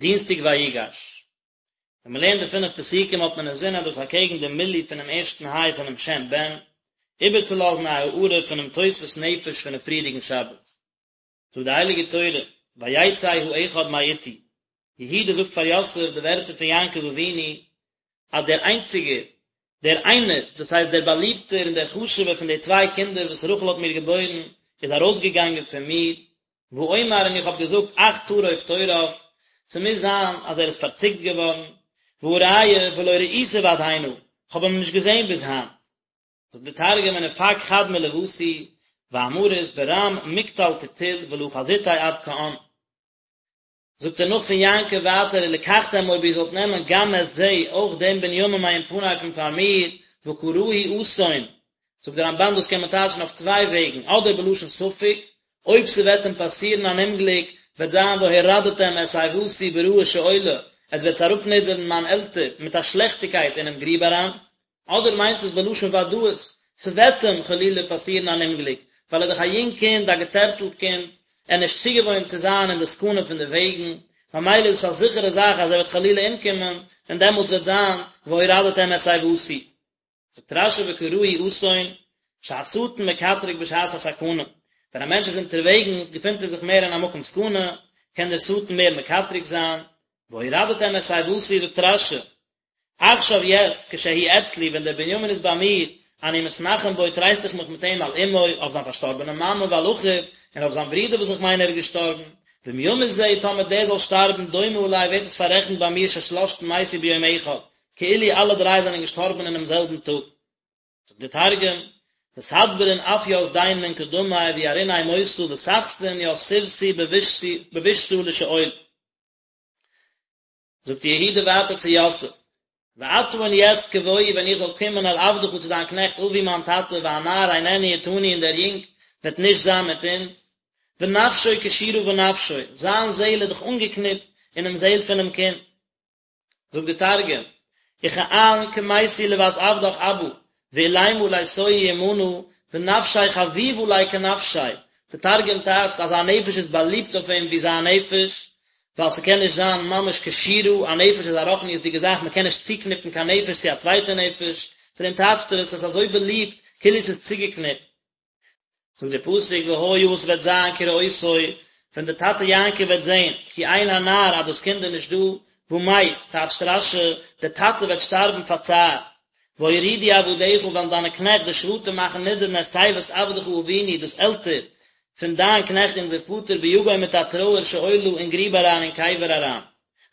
דינסטאג ויגש. ווען מען לערנט די פינף פסוקים האט מען אינזין אז דאס אקעגן די מילוי פונעם ערשטן היי פונעם שם בן, איבערצולאזן א הארה פונעם תוספות נפש פונעם פריערדיגן שבת. זאגט די הייליגע תורה, ויצא האחד מאתי, יהודה זאגט פאר יוסף די ווערטער פון יעקב אבינו, אז דער איינציגער, דער איינער, דאס הייסט דער באליבטער און דער חשוב'ער פון די צוויי קינדער וואס רחל האט מיר געבוירן, איז ארויסגעגאנגען פון מיר, ואומר און איך האב געזאגט אך טרוף טורף, ס'מוז זיין אז ער איז פארציקט געווארן, והא ראיה ולא ראיתיו עד הנה, כ'האב אים נישט געזען ביז היינט. זאגט די תרגום ונפק חד מלותי, ואמרית ברם מקטל קטיל ולא חזיתיה עד כען. זאגט ער נאך פון יעקב ווייטער ולקחתם אויב איר זאלט נעמען גם את זה אויך דעם בנימין מעם פני פון פאר מיר וקראהו אסון, זאגט דער רמב"ן דאס קען מען טייטשן אויף צוויי וועגן אדער בלשון ספק, אויב ס'וועט אים פאסירן אן אומגליק וועט זיין והורדתם את שיבתי ברעה שאולה, עס וועט אראפנידערן מיין עלטער מיט א שלעכטיגקייט אינעם גריב אריין, אדער מיינט עס בלשון ודאות, ס'וועט אים חלילה פאסירן אן אומגליק, ווייל ער איז דאך א יונג קינד, א געצערטלט קינד, ער איז נישט צוגעוואוינט צו זיין אין די סכנה פון די וועגן, ממילא איז עס א זיכערע זאך אז ער וועט חלילה אומקומען, און דעמאלטס וועט זיין והורדתם את שיבתי. זאגט רש"י וקראהו אסון, שהשטן מקטרג בשעת הסכנה, ווען א מענטש איז אונטערוועגנס געפינט ער זיך מער אין א מקום סכנה, קען דער שטן מער מקטרג זיין, והורדתם את שיבתי זאגט רש"י, עכשיו יעצט, כשהוא אצלי, ווען דער בנימין איז ביי מיר, אני מתנחם בו, טרייסט איך מיך מיט אים על אמו, אויף זיין פארשטארבענע מאמע, ועל אחיו, און אויף זיין ברודער וואס איך מיין ער איז געשטארבן. ואם ימות זה, טאמער דער זאל שטארבן, דומה עלי, ווערט עס פאררעכנט ביי מיר ששלשתן מתו ביום אחד, כאילו אלע דריי זענען געשטארבן אינעם זעלבן טאג. זאגט דער תרגום, ותדברון אף ית דין מן קדמי וירעיניה מותא ותחתון ית שיבתי בבישתא לשאול. זאגט יהודה ווייטער צו יוסף, ועתה און יעצט כבואי ווען איך זאל קומען אל עבדך צו דיין קנעכט אבי מיין טאטע והנער איננו אתנו און דער יונג וועט נישט זיין מיט אונז, ונפשו קשורה בנפשו, זיין זעהל איז דאך אנגעקניפט אינעם זעהל פונעם קינד. זאגט די תרגום, וכען כמיתי לות עבדך אבא, ואולימא ליתוהי עמנא, ונפשיה חביבא ליה כנפשיה, די תרגום טייטשט אז זיין נפש איז באליבט אויף אים ווי זיין נפש, ווייל ס'קען נישט זיין ממש קשורה, א נפש איז א רוחניות'דיגע זאך, מ'קען נישט צוקניפן קיין נפש צו א צווייטע נפש, פון דעם טייטשט ער עס, עס איז אזוי באליבט, כאילו ס'איז צוגעקניפט. זאגט דער פסוק והיה וואס וועט זיין כראותו, ווען דער טאטע יעקב וועט זען, כי אין הנער אז דאס קינד איז נישט דא, ומת, טייטשט רש"י, דער טאטע וועט שטארבן פאר צער. והורידו עבדיך וועלן דיינע קנעכט די שבטים מאכן נידערן את שיבת עבדך אבינו דאס עלטער פון דיין קנעכט אונזער פאטער ביגון מיט א טרויער שאולה אין גריב אריין אין קבר אריין.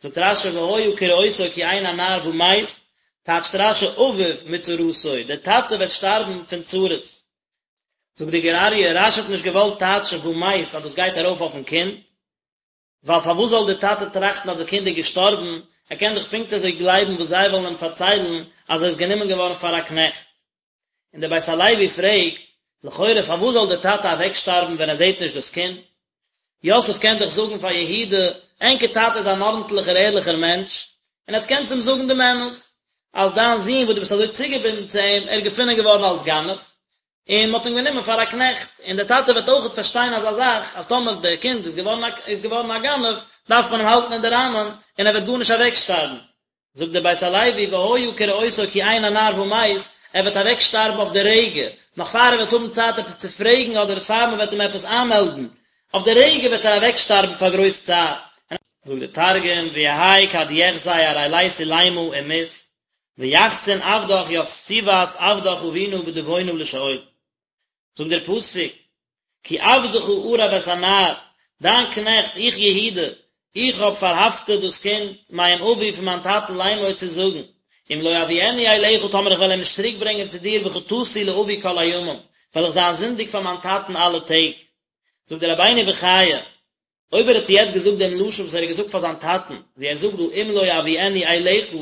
זאגט רש"י והיה כראותו כי אין הנער ומת, טייטשט רש"י אביו מצרתו, דער טאטע וועט שטארבן פון צרות. זאגט די גור אריה, רש"י האט נישט געוואלט טייטשן ומת אז דאס גייט ארויף אויפן קינד, ווייל פארוואס זאל דער טאטע טראכטן אז די קינד איז געשטארבן, ער קען דאך פונקט אזוי גלייבן וואס זיי וועלן אים פארציילן אז ער איז גענומען געווארן פאר א קנעכט. און דער בית הלוי פרעגט, לכאורה פארוואס זאל דער טאטע אוועקשטארבן ווען ער זעט נישט דאס קינד? יוסף קען דאך זאגן פאר יהודה, ענקער טאטע איז אן ארנטליכער ערליכער מענטש, און עטס קענטס אים זאגן דעם אמת, אז דיין זון וואס דו ביסט אזוי צוגעבינדן צו אים, ער איז געפונען געווארן אלס גנב, און מען האט אים גענומען פאר א קנעכט, און דער טאטע וועט אויכעט פארשטיין אזא זאך, אז טאמער דער קינד איז געווארן א איז געווארן א גנב, דארף מען אים האלטן אין די ראמען, און ער וועט גארנישט אוועקשטארבן. זאגט דער בית הלוי, והיה כראותו כי אין הנער ומת, ער וועט אוועקשטארבן אויף די רגע, נאך פאר ער וועט האבן צייט עפעס צו פרעגן אדער פאר מען וועט אים עפעס איינמעלדן, אויף די רגע וועט ער אוועקשטארבן פאר גרויס צער. זאגט דער תרגום, ויהי כד יחזי אריליה עולימא ומית, ויחתון עבדך ית שיבת עבדך אבונא בדוונא לשאול. זאגט דער פסוק, כי עבדך ערב את הנער, דיין קנעכט, איך יהודה, איך האב פארהאפטעט דאס קינד, מעם אבי פון מיין טאטן לאמור צו זאגן, אם לא אביאנו אליך טאמער איך וועל אים נישט צוריק ברענגען צו דיר וחטאתי לאבי כל הימים, וועל איך זיין זינדיג פאר מיין טאטן אלע טעג. זאגט דער רבינו בחיי, אויב ער האט יעצט געזאגט דעם לשון וואס ער האט געזאגט פאר זיין טאטן, ווי ער זאגט דא אם לא אביאנו אליך,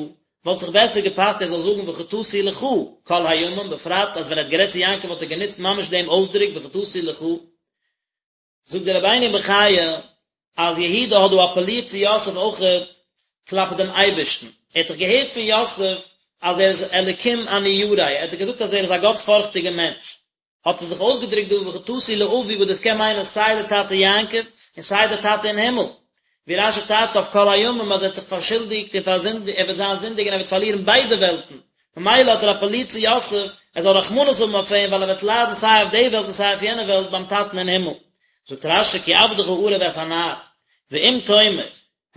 וואלט זיך בעסער געפאסט ער זאל זאגן וחטאתי לך כל הימים, בפרט אז ווען ער האט גערעדט צו יעקב האט ער גענוצט ממש דעם אויסדרוק וחטאתי לך. זאגט דער רבינו בחיי אז יהודה האט דא אפעלירט צו יוסף אויכעט כלפי דעם אייבערשטן, ער האט דאך געהערט פון יוסף אז ער איז אלקים אני ירא, ער האט דאך געזאגט אז ער איז א גאטספארכטיגער מענטש, האט ער זיך אויסגעדרוקט דא וחטאתי לאבי וואס דאס קען מיינען סיי די טאטע יעקב און סיי די טאטע אין הימל. ווי רשי טייטשט אויף כל הימים אז ער האט זיך פארשולדיגט און פארזינדיגט, ער וועט זיין זינדיג און ער וועט פארלירן ביידע וועלטן, ממילא האט ער אפעלירט צו יוסף ער זאל רחמנות האבן אויף אים ווייל ער וועט ליידן סיי אויף די וועלט און סיי אויף יענע וועלט ביים טאטן אין הימל. זאגט רשי כי עבדך ערב את הנער, ואם תאמר,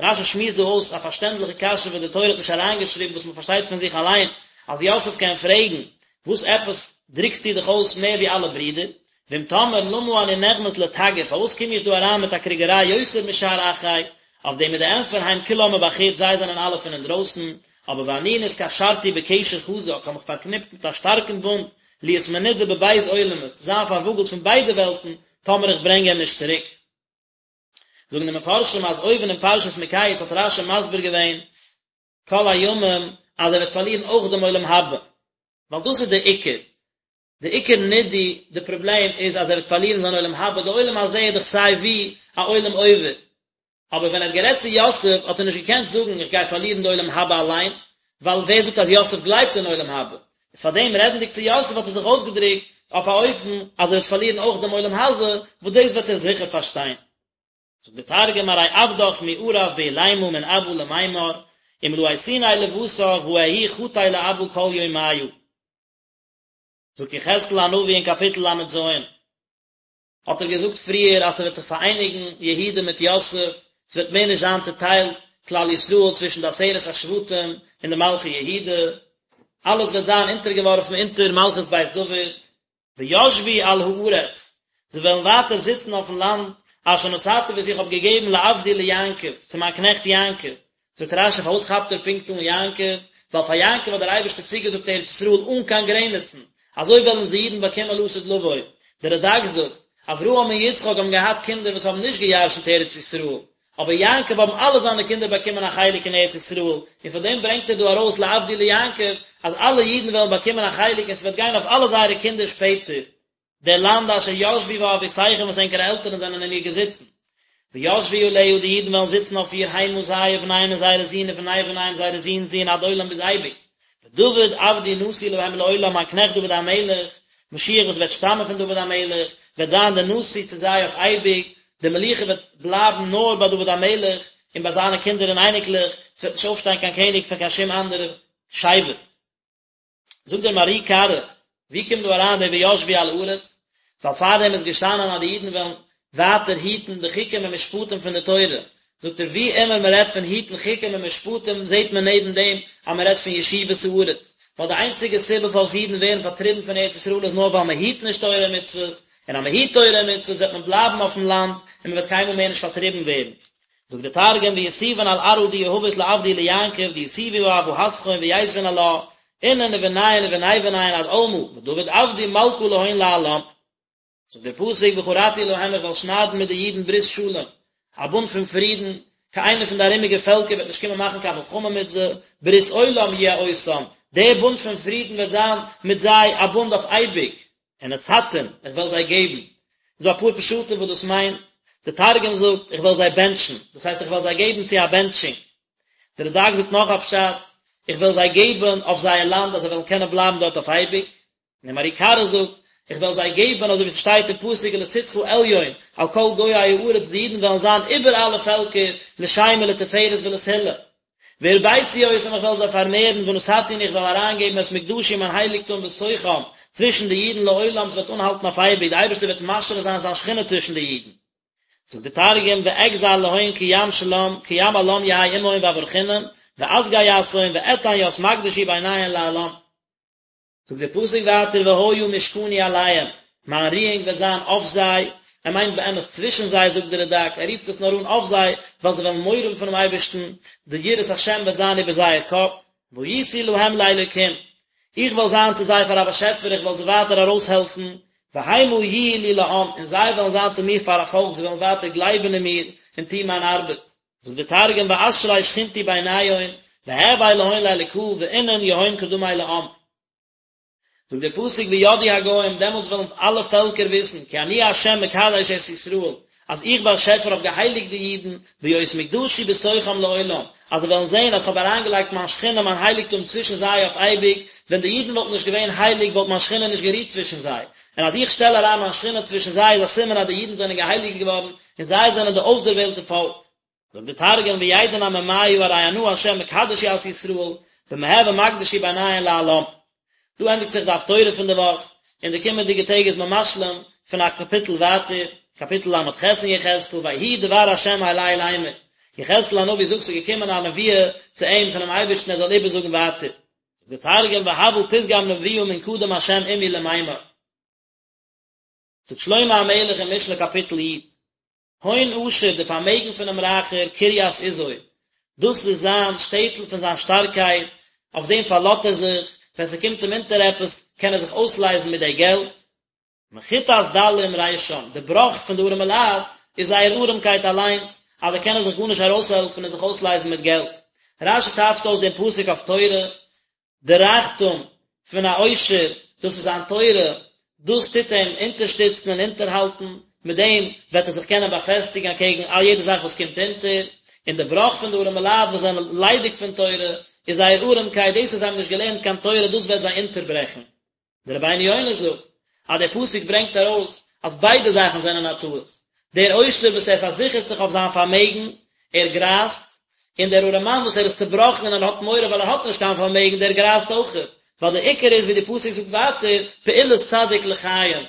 רשי שמועסט דא אויס א פארשטענדליכע קשיא וואס די תורה האט נישט אריינגעשריבן וואס מען פארשטייט פון זיך אליין אז יוסף קען פרעגן, וואס עפעס דרוקסטו דיך אויס מער ווי אלע ברידער? ואם תאמר למה אני נכנס לתגר, פארוואס קום איך דא אריין מיט א קריגעריי יותר משאר אחי? אויף דעם איז די ענטפער הם כולם מבחוץ זיי זענען אלע פון אינדרויסן, אבער ואני נתקשרתי בקשר חזק, כ'האב מיך פארקניפט מיט א שטארקן בונד, להיות מנודה בב' עולמות, צו זיין פארוואגלט פון ביידע וועלטן, טאמער איך ברענג אים נישט צוריק. זאגן די מפרשים אז אויבן אין פרשת מקץ האט רשי מסביר געווען כל הימים אז ער וועט פארלירן אויך דעם עולם הבא, ווייל דאס איז דער עיקר, די עיקר נידוי, די פראבלעם איז אז ער וועט פארלירן זיין עולם הבא, די עולם הזה איז דאך סיי ווי א עולם עובר, אבער ווען ער האט גערעדט צו יוסף האט ער נישט געקענט זאגן איך גיי פארלירן די עולם הבא אליין, ווייל ווער זאגט אז יוסף גלייבט אין עולם הבא, איז פאר דעם רעדנדיג צו יוסף האט ער זיך אויסגעדרוקט אויף א אופן אז ער וועט פארלירן אויך דעם עולם הזה, וואס דאס וועט ער זיכער פארשטיין. זאגט דער תרגום ארי עבדך מערב בעולימא מן אבא למימר, אם לא אתיניה לבתר ואהי חטי לאבא כל יומיא. זאגט יחזקאל הנביא אין קאפיטל ל"ז, האט ער געזאגט פריער אז ס'וועט זיך פאראייניגן יהודה מיט יוסף, ס'וועט מער נישט זיין צוטיילט כלל ישראל צווישן די עשרת השבטים און די מלכי יהודה, אלעס וועט זיין אונטערגעווארפן אונטער מלכות בית דוד, וישבו על הארץ, זיי וועלן ווייטער זיצן אויפן לאנד, אשר נתתי וואס איך האב געגעבן לעבדי ליעקב, צו מיין קנעכט יעקב, זאגט רשי פארוואס כאפט ער פונקט אן יעקב, ווייל פאר יעקב האט דער אייבערשטער צוגעזאגט ארץ ישראל אן קיין גרעניצן, אזוי וועלן עס די אידן באקומען לעתיד לבוא. דער רד"ק זאגט, אברהם און יצחק האבן געהאט קינדער וואס האבן נישט געירשנט ארץ ישראל, אבער יעקב האבן אלע זיינע קינדער באקומען א חלק אין ארץ ישראל, און פון דעם ברענגט ער דא ארויס לעבדי ליעקב, אז אלע אידן וועלן באקומען א חלק און ס'וועט גיין אויף אלע זייערע קינדער שפעטער. דער לאנד אשר ישבו בה אבותיכם וואס ענקערע עלטערן זענען אין איר געזיצן. וישבו עליה, די אידן וועלן זיצן אויף איר המה זיי ובניהם און זייערע זין ובני בניהם זייערע זין'ס זין עד עולם ביז אייביג. ודוד עבדי נשיא להם לעולם מיין קנעכט דוד המלך, משיח וואס וועט שטאמען פון דוד המלך, וועט זיין דער נשיא צו זיי אויף אייביג, די מלוכה וועט בלייבן נאר ביי דוד המלך און ביי זיינע קינדער און אייניקלעך, ס'וועט נישט אויפשטיין קיין קעניג פון קיין שום אנדערע שבט. זאגט דער מהר"י קרא, ווי קומט דא אריין די וישבו על הארץ? ווייל פארדעם איז געשטאנען אז די אידן וועלן ווייטער היטן די חוקים און משפטים פון די תורה, זאגט ער ווי אימער מען רעדט פון היטן חוקים און משפטים זעט מען נעבן דעם אז מען רעדט פון ישיבת הארץ, ווייל די איינציגע סיבה פארוואס אידן ווערן פארטריבן פון ארץ ישראל איז נאר ווייל מען היט נישט תורה און מצוות, און אז מען היט תורה און מצוות וועט מען בלייבן אויפן לאנד און מען וועט קיינמאל מער נישט פארטריבן ווערן. זאגט דער תרגום ויתיבון על ארעא די יהבית לעבדי ליעקב דיתיבו בה אבהתכון ויתבון עלה אינון ובניהון ובני בניהון עד עלמא ודוד עבדי מלכא להון לעלם. זאגט דער פסוק וכרתי להם איך וועל שניידן מיט די אידן ברית שלום, א בונד פון פרידן, קיין איינער פון די ארומיגע פעלקער וועט נישט קומען מאכן קיין מלחמה מיט זיי, ברית עולם יהיה אותם, דער בונד פון פרידן וועט זיין מיט זיי א בונד אויף אייביג, ונתתים, איך וועל זיי געבן. איז דא אפאר פשטים וואס דאס מיינט, די תרגום זאגט, איך וועל זיי בענטשן, דאס הייסט איך וועל זיי געבן צו א בענטשונג. די רד"ק זאגט נאך א פשט, איך וועל זיי געבן אויף זייער לאנד אז זיי וועלן קענען בלייבן דארט אויף אייביג. און דער מהר"י קרא זאגט, איך וועל זיי געבן אזוי ווי ס'שטייט אין פסוק ולתתך עליון על כל גויי הארץ, די אידן וועלן זיין איבער אלע פעלקער לשם ולתפארת ולתהילה. והרביתי אותם איך וועל זיי פארמערן ונתתי און איך וועל אריינגעבן את מקדשי מיין הייליגטום בתוכם צווישן די אידן לעולם ס'וועט אנהאלטן אויף אייביג, די אייבערשטער וועט משרה זיין זיין שכינה צווישן די אידן. זאגט דער תרגום ואגזר להון כים שלם כים עלם יהי עמהון ואברכינון ואסגי יתהון ואתן ית מקדשי ביניהון לעלם. זאגט דער פסוק ווייטער והיה משכני עליהם, מיין רואונג וועט זיין אויף זיי, ער מיינט באמת צווישן זיי זאגט דער רד"ק, ער רופט עס נאר אן אויף זיי, ווייל זיי וועלן מורא האבן פונעם אייבערשטן, די יראת השם וועט זיין איבער זייער קאפ, והייתי להם לאלוקים, איך וועל זיין צו זיי פאר א באשעפער, איך וועל זיי ווייטער ארויסהעלפן, והמה יהיו לי לעם, און זיי וועלן זיין צו מיר פאר א פאלק, זיי וועלן ווייטער גלייבן אין מיר און טון מיין ארבעט. זאגט דער תרגום ואשרי שכינתי ביניהון, והוי להון לאלקא, ואינון יהון קדמי לעם. זאגט דער פסוק וידעו הגוים, דעמאלטס וועלן אלע פעלקער וויסן, כי אני ה' מקדש את ישראל, אז איך באשעפער האב געהייליגט די אידן, בהיות מקדשי בתוכם לעולם, אז זיי וועלן זען אז כ'האב אריינגעלייגט מיין שכינה מיין הייליגטום צווישן זיי אויף אייביג, ווען די אידן וואלטן נישט געווען הייליג וואלט מיין שכינה נישט גערוהט צווישן זיי, און אז איך שטעל אריין מיין שכינה צווישן זיי איז א סימן אז די אידן זענען געהייליגט געווארן, און זיי זענען די אויסדערוועלטע פאלק. זאגט די תרגום וידעון עממיא ארי אנא השם מקדש ית ישראל במהוי מקדשי ביניהון לעלם. דא ענדיגט זיך די הפטורה פון די וואך, אין די קומענדיגע טעג איז מען משלים פון א קאפיטל ווייטער, קאפיטל ל"ח אין יחזקאל, ויהי דבר השם אלי לאמר, יחזקאל הנביא זאגט ס'איז געקומען א נבואה צו אים פונעם אייבערשטן ער זאל איבערזאגן ווייטער. זאגט די תרגום והוה פתגם נבואה מן קדם השם עמי למימר. זאגט שלמה המלך אין משלי קאפיטל י', הון עשיר, די פארמעגן פונעם רייכער, קרית עזו, דאס איז זיין שטעטל פון זיין שטארקייט, אויף דעם פארלאזט ער זיך, ווען ס'קומט אים אונטער עפעס, קען ער זיך אויסלייזן מיט די געלט. מחיתת דלים רישם, די בראך פון די ארעמע לייט איז זייער ארעמקייט אליינס, אז זיי קענען זיך גארנישט ארויסהעלפן און זיך אויסלייזן מיט געלט. רש"י טייטשט אויס דעם פסוק אויף תורה, די רייכטום פון א עושר, דאס איז זיין תורה, דאס טוט אים אונטערשטיצן און אונטערהאלטן, מיט דעם וועט ער זיך קענען באפעסטיגן אקעגן א יעדע זאך וואס קומט אונטער, און די בראך פון די ארעמע לייט וואס זענען ליידיג פון תורה, איז זייער ארעמקייט, דאס אז זיי האבן נישט געלערנט קיין תורה, דאס וועט זיי אונטערברעכן. דער רבינו יונה זאגט אז דער פסוק ברענגט ארויס אז ביידע זאכן זענען א טעות, דער עושר וואס ער פארזיכערט זיך אויף זיין פארמעגן, ער גרייזט, און דער ארעמאן וואס ער איז צעבראכן און ער האט מורא ווייל ער האט נישט קיין פארמעגן, דער גרייזט אויכעט, ווייל דער עיקר איז ווי דער פסוק זאגט ווייטער, פעולת צדיק לחיים,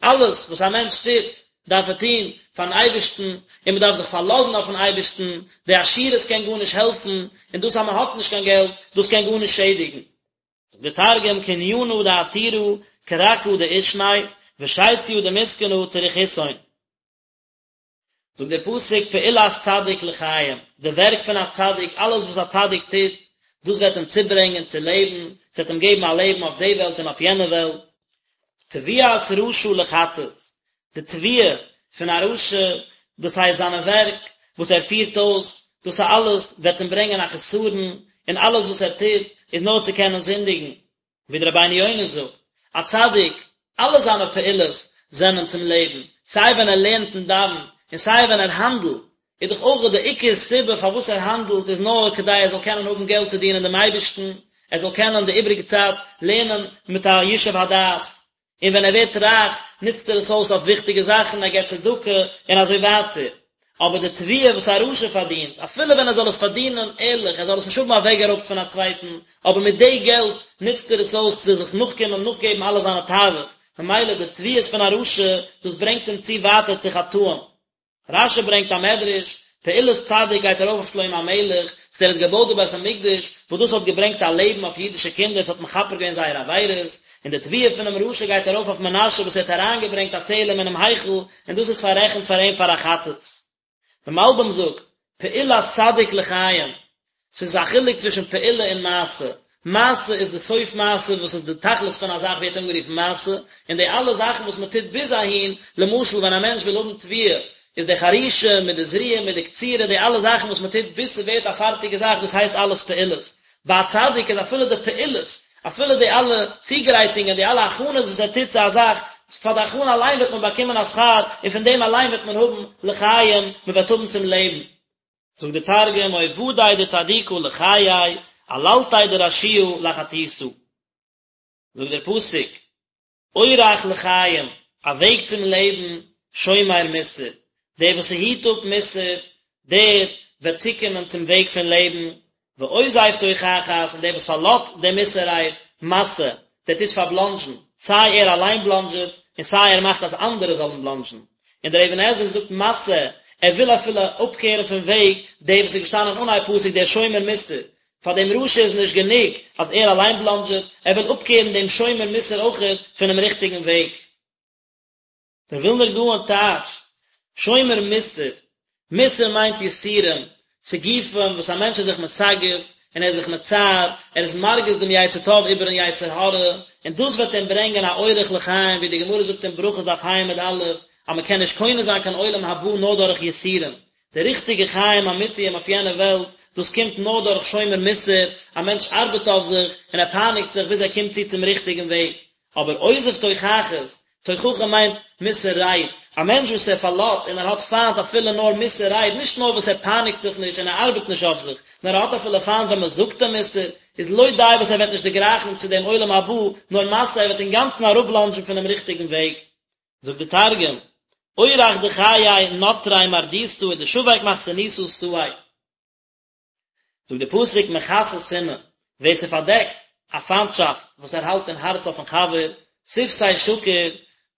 אלעס וואס א מענטש טוט, דארף ער טון פארן אייבערשטן, און מען דארף זיך פארלאזן אויפן אייבערשטן, די עשירות קען גארנישט העלפן, און דאס אז מען האט נישט קיין געלט, דאס קען גארנישט שעדיגן. זאגט דער תרגום קנינא דעתירא כרכא דעישניה ושיציא דמסכנא צריכותהון. זאגט דער פסוק פעולת צדיק לחיים, די ווערק פון א צדיק, אלעס וואס א צדיק טוט, דאס וועט אים צוברענגען צו לעבן, עס וועט אים געבן א לעבן אויף די וועלט און אויף יענע וועלט. תבואת רשע לחטאת, די תבואה פון א רשע, דאס הייסט זיינע ווערק וואס ער פירט אויס, דאס אלעס וועט אים ברענגען א חסרון, און אלעס וואס ער טוט איז נאר צו קענען זינדיגן. ווי דער רבינו יונה זאגט, א צדיק, אלע זיינע פעולות זענען צום לעבן, סיי ווען ער לערנט און דאווענט, און סיי ווען ער האנדלט, איז דאך אויך די עיקר סיבה פארוואס ער האנדלט איז נאר כדי ער זאל קענען האבן געלט צו דינען דעם אייבערשטן, ער זאל קענען די איבריגע צייט לערנען מיט א ישוב הדעת. און ווען ער ווערט רייך נוצט ער עס אויס אויף וויכטיגע זאכן, ער געבט צדקה און אזוי ווייטער. אבער די תבואה וואס א רשע פארדינט, אפילו ווען ער זאל עס פארדינען ערליך, ער זאל עס נישט האבן אוועקגערויבט פון א צווייטן, אבער מיט די געלט נוצט ער עס אויס צו זיך נאכקומען, נאכגעבן אלע זיינע תאוות, ממילא די תבואות פון א רשע, דאס ברענגט אים צו ווייטער צו חטאים. רש"י ברענגט א מדרש, פעולת צדיק גייט ארויף אויף שלמה המלך, וואס ער האט געבויט די בית המקדש, וואס דאס האט געברענגט א לעבן אויף אידישע קינדער, עס האט מכפר געווען זייערע עבירות, און די תבואה פונעם רשע גייט ארויף אויף מנשה וואס ער האט אריינגעברענגט א צלם אינעם היכל, און דאס איז פאררעכנט פאר אים פאר א חטאת. דער מלבי"ם זאגט, פעולת צדיק לחיים, ס'איז א חילוק צווישן פעולה און מעשה. מעשה איז די סוף מעשה וואס איז די תכלית פון א זאך ווערט אנגערופן מעשה, און די אלע זאכן וואס מען טוט ביז אהין, למשל ווען א מענטש וויל האבן תבואה, איז די חרישה מיט די זריעה מיט די קצירה די אלע זאכן וואס מען טוט ביז ס'ווערט א פארטיגע זאך דאס הייסט אלעס פעולות. ביי א צדיק איז אפילו די פעולות, אפילו די אלע צוגרייטונגען, די אלע הכנות וואס ער טוט צו א זאך, פאר די הכנה אליין וועט מען באקומען א שכר, און פון דעם אליין וועט מען האבן לחיים, מען וועט האבן צום לעבן. זאגט די תרגום, עובדי דצדיקא לחיי, עללתיה דרשיעא לחטיתא. זאגט דער פסוק, אורח לחיים, א וועג צום לעבן, שומר מוסר, דער וואס ס'היט אפ מוסר, דער וועט צוקומען צום וועג פון לעבן, ועוזב תוכחת, און דער וואס פארלאזט די מוסר רייד, מתעה, דער טוט פארבלאנדזשן, סיי ער אליין בלאנדזשעט, און סיי ער מאכט אז אנדערע זאלן בלאנדזשן. און דער אבן עזרא זאגט מתעה, ער וויל אפילו אפקערן פון וועג דער וואס איז געשטאנען אנהייב פסוק דער שומר מוסר, פאר דעם רשע איז נישט גענוג אז ער אליין בלאנדזשעט, ער וויל אפקערן דעם שומר מוסר אויכעט פונעם ריכטיגן וועג. דער ווילנער גאון טייטשט, שומר מוסר, מוסר מיינט יסורים, סיגופים וואס א מענטש איז זיך מסגף און ער איז זיך מצער, ער איז מרגיז דעם יצר טוב איבערן יצר הרע, און דאס וועט אים ברענגען א אורח לחיים, ווי די גמרא זאגט אין ברכות דף ה' עמוד א', אז מען קען נישט קונה זיין קיין עולם הבא נאר דורך יסורים, די ריכטיגע חיים אמיתיים אויף יענע וועלט, דאס קומט נאר דורך שומר מוסר, א מענטש ארבעט אויף זיך און ער פייניגט זיך ביז ער קומט צו צום ריכטיגן וועג. אבער עוזב תוכחות, תוכחה מיינט מוסר רייד, א מענטש וואס ער פארלאזט און ער האט פיינט אפילו נאר מוסר רייד, נישט נאר וואס ער פייניגט זיך נישט און ער ארבעט נישט אויף זיך, נאר ער האט אפילו פיינט ווען מען זאגט אים מוסר, איז לא די וואס ער וועט נישט דערגרייכן צו דעם עולם הבא, נאר מתעה, ער וועט אינגאנצן אראפבלאנדזשן פונעם ריכטיגן וועג. זאגט די תרגום. אורח דחיי נטריה מרדותא ודשביק מכסנותא סאי. זאגט די פסוק מכסה שנאה, ווער ס'פארדעקט א פיינטשאפט וואס ער האלט אין הארץ אויפן חבר, שפתי שקר,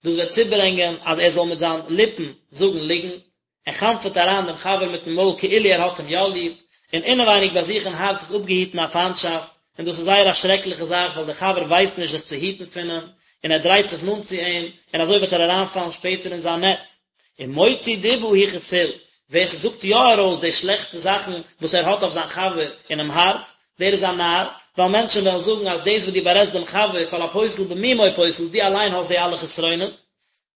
דאס וועט צוברענגען אז ער זאל מיט זיין ליפן זאגן ליגנט, ער חנפ'עט אריין דעם חבר מיטן מויל כאילו ער האט אים יא ליב, און אינעווייניג ביי זיך אין הארץ איז אפגעהיטן א פיינטשאפט, און דאס איז זייער א שרעקליכע זאך ווייל דער חבר ווייסט נישט זיך צו היטן פון אים, און ער דרייט זיך נאנט צו אים, און אזוי וועט ער אריינפאלן שפעטער אין זיין נעץ. און מוציא דיבה הוא כסיל, ווער ס'זאגט יא ארויס די שלעכטע זאכן וואס ער האט אויף זיין חבר אינעם הארץ, דער איז א נאר, ווייל מענטשן וועלן זאגן אז דאס וואס דו בארעדסט דעם חבר, כל הפוסל במומו פוסל, דו אליין האסט די אלע חסרונות.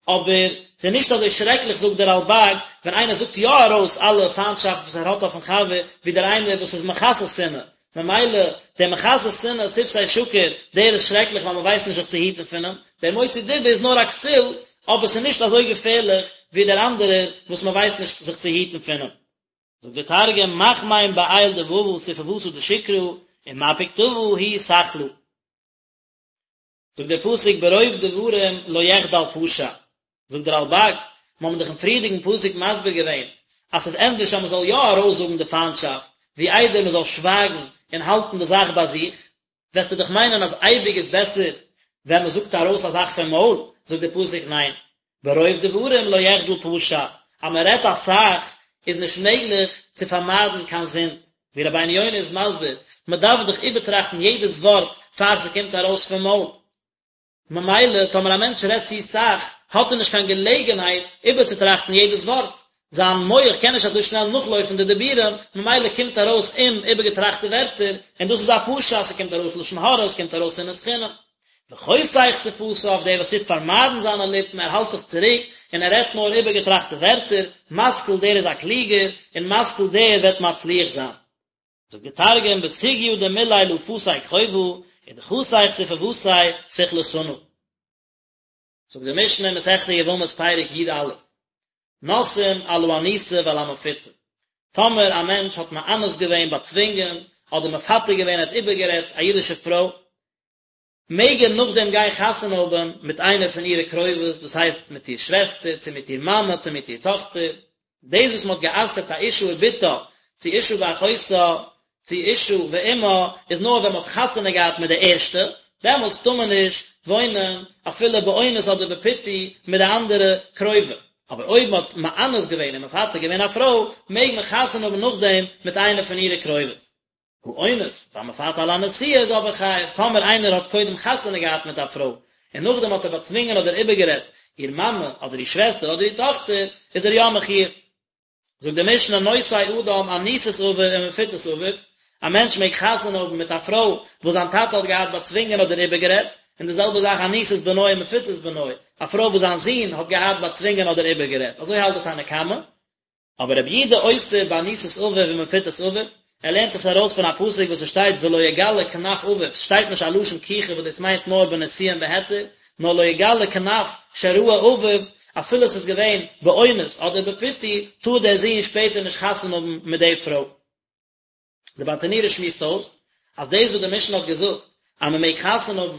אבער ס'איז נישט אזוי שרעקליך זאגט דער רלב"ג, ווען איינער זאגט יא ארויס אלע פיינטשאפט וואס ער האט אויפן חבר, ווי דער איינער וואס איז מכסה שנאה, ממילא דער מכסה שנאה שפתי שקר, דער איז שרעקליך ווייל מ'ווייסט נישט זיך צו היטן פון אים, דער מוציא דיבה איז נאר א כסיל, אבער ס'איז נישט אזוי געפערליך ווי דער אנדערער וואס מ'ווייסט נישט זיך צו היטן פון אים. זאגט דער תרגום, מחמין בעיל דבבא ספוותא דשקרא, ומפיק טבא הוא סכלא. זאגט דער פסוק ברוב דברים לא יחדל פשע, זאגט דער רלב"ג, מיר האבן דאך אין פריערדיגן פסוק מסביר געווען אז ס'איז ענדערש אז מ'זאל יא ארויסזאגן די פיינטשאפט, ווי איידער מ'זאל שווייגן און האלטן די זאך ביי זיך, וועסטו דאך מיינען אז אייביג איז בעסער ווען מ'זאגט ארויס א זאך פון מויל, זאגט דער פסוק ניין, ברוב דברים לא יחדל פשע, אז מען רעדט אסאך איז נישט מעגליך צו פארמיידן קיין זינד, ווי רבינו יונה איז מסביר, מען דארף דאך איבערטראכטן יעדעס ווארט פאר ס'קומט ארויס פון מויל, ממילא טאמער א מענטש רעדט צו סאך האט ער נישט קיין געלעגנהייט איבערצוטראכטן יעדעס ווארט, זיין מח קען נישט אזוי שנעל נאכלויפן די דיבורים, ממילא קומט ארויס אומאיבערגעטראכטע ווערטער, און דאס איז א פשע, ס'קומט ארויס לשון הרע, ס'קומט ארויס שנאת חינם. וחושך שפתיו, דער וואס טוט פארמיידן זיינע ליפן, ער האלט זיך צוריק, און ער רעדט נאר איבערגעטראכטע ווערטער, משכיל דער איז א קלוגער, און משכיל דער וועט מצליח זיין. זאגט דער תרגום, בסוגיא דמילי לא פסיק חובא, ודחסיך ספוותיה סכלתנא. זאגט די משנה אין מסכת יבמות פרק י"א, נושאין על האנוסה ועל המפותה, טאמער א מענטש האט מאנס געווען, באצווינגען, אדער מפתה געווען, ער האט איבערגערעדט א אידישע פרוי, מעג ער נאכדעם גיין חתונה האבן מיט איינער פון אירע קרובות, דאס הייסט מיט איר שוועסטער, צו מיט איר מאמע, צו מיט איר טאכטער, דאס וואס מען האט גע'אסר'ט א אשה ובתה, צו אשה ואחותה, צו אשה ואמה, איז נאר ווען מען האט חתונה געהאט מיט די ערשטע, דעמאלטס טאר מען נישט וואוינען אפילו באונס אדער בפיתוי מיט די אנדערע קרובה, אבער אויב מען האט מאנס געווען און מפתה געווען א פרוי, מעג מען חתונה האבן נאכדעם מיט איינע פון אירע קרובות. האונס, והמפתה על הנשואה איז אבער חייב, טאמער איינער האט קודם חתונה געהאט מיט א פרוי, און נאכדעם האט ער באצווינגען אדער איבערגערעדט איר מאמע, אדער איר שוועסטער, אדער איר טאכטער, איז ער יא מחויב. זאגט די משנה נושא אדם אנוסת אביו ומפותת אביו, א מענטש מעג חתונה האבן מיט א פרוי וואס זיין טאטע האט געהאט באצווינגען אדער איבערגערעדט, און די זעלבע זאך אנוסת בנו ומפותת בנו, א פרוי וואס זיין זון האט געהאט באצווינגען אדער איבערגערעדט, אזוי האלט די תנא קמא. אבער רבי יהודה אוסר באנוסת אביו ומפותת אביו, ער לערנט עס ארויס פון א פסוק וואס עס שטייט ולא יגלה כנף אביו, ס'שטייט נישט א לשון קיחה וואס דאס מיינט נאר בנישואין בהיתר, נאר לא יגלה כנף שראה אביו, אפילו עס איז געווען באונס אדער בפיתוי, טאר דער זון שפעטער נישט חתונה האבן מיט די פרוי. די ברטנורא שמועסט אויס אז דאס וואס די משנה האט געזאגט אז מען מעג חתונה האבן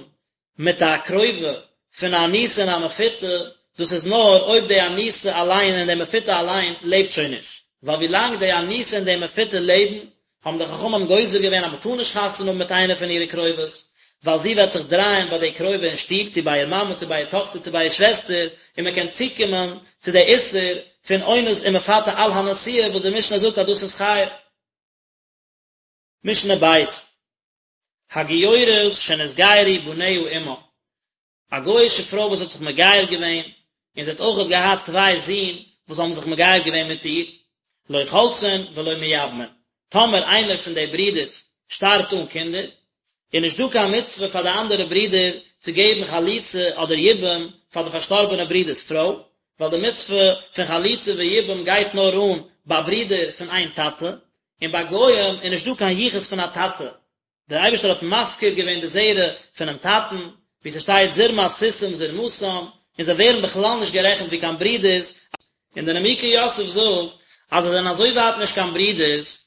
מיט א קרובה פון א אנוסה און א מפותה, דאס איז נאר אויב די אנוסה אליין און די מפותה אליין לעבט שוין נישט, ווייל ווי לאנג די אנוסה און די מפותה לעבן, האבן די חכמים גוזר געווען אז מען טאר נישט חתונה האבן מיט איינע פון אירע קרובות, ווייל זי וועט זיך דרייען ביי די קרובה אין שטוב, צו ביי איר מאמע, צו ביי איר טאכטער, צו ביי איר שוועסטער, און מען קען צוקומען צו די איסור פון אונס און מפתה על הנשואה וואס די משנה זאגט אז דאס איז חייב. משנה ב', הגיורת שנתגיירו בניה עמה, א גוי'אישע פרוי וואס האט זיך מגייר געווען, און זי האט אויכעט געהאט צוויי זין וואס האבן זיך מגייר געווען מיט איר, לא חולצין ולא מייבמין, טאמער איינער פון די ברידערס שטארבט אן קינדער, איז נישט דא קיין מצוה פאר די אנדערע ברידער צו געבן חליצה אדער יבום פאר די פארשטארבענע ברודער'ס פרוי, ווייל די מצוה פון חליצה ויבום גייט נאר אן ביי ברידער פון איין טאטע, און ביי גוים איז נישט דא קיין יחוס פון א טאטע, דער אייבערשטער האט מפקיר געווען די זרע פונעם טאטן, ווי ס'שטייט זרמת סוסים זרמתם, און זיי ווערן בכלל נישט גערעכנט ווי קיין ברידערס, און דער נימוקי יוסף זאגט אז זיי זענען אזוי ווייט נישט קיין ברידערס,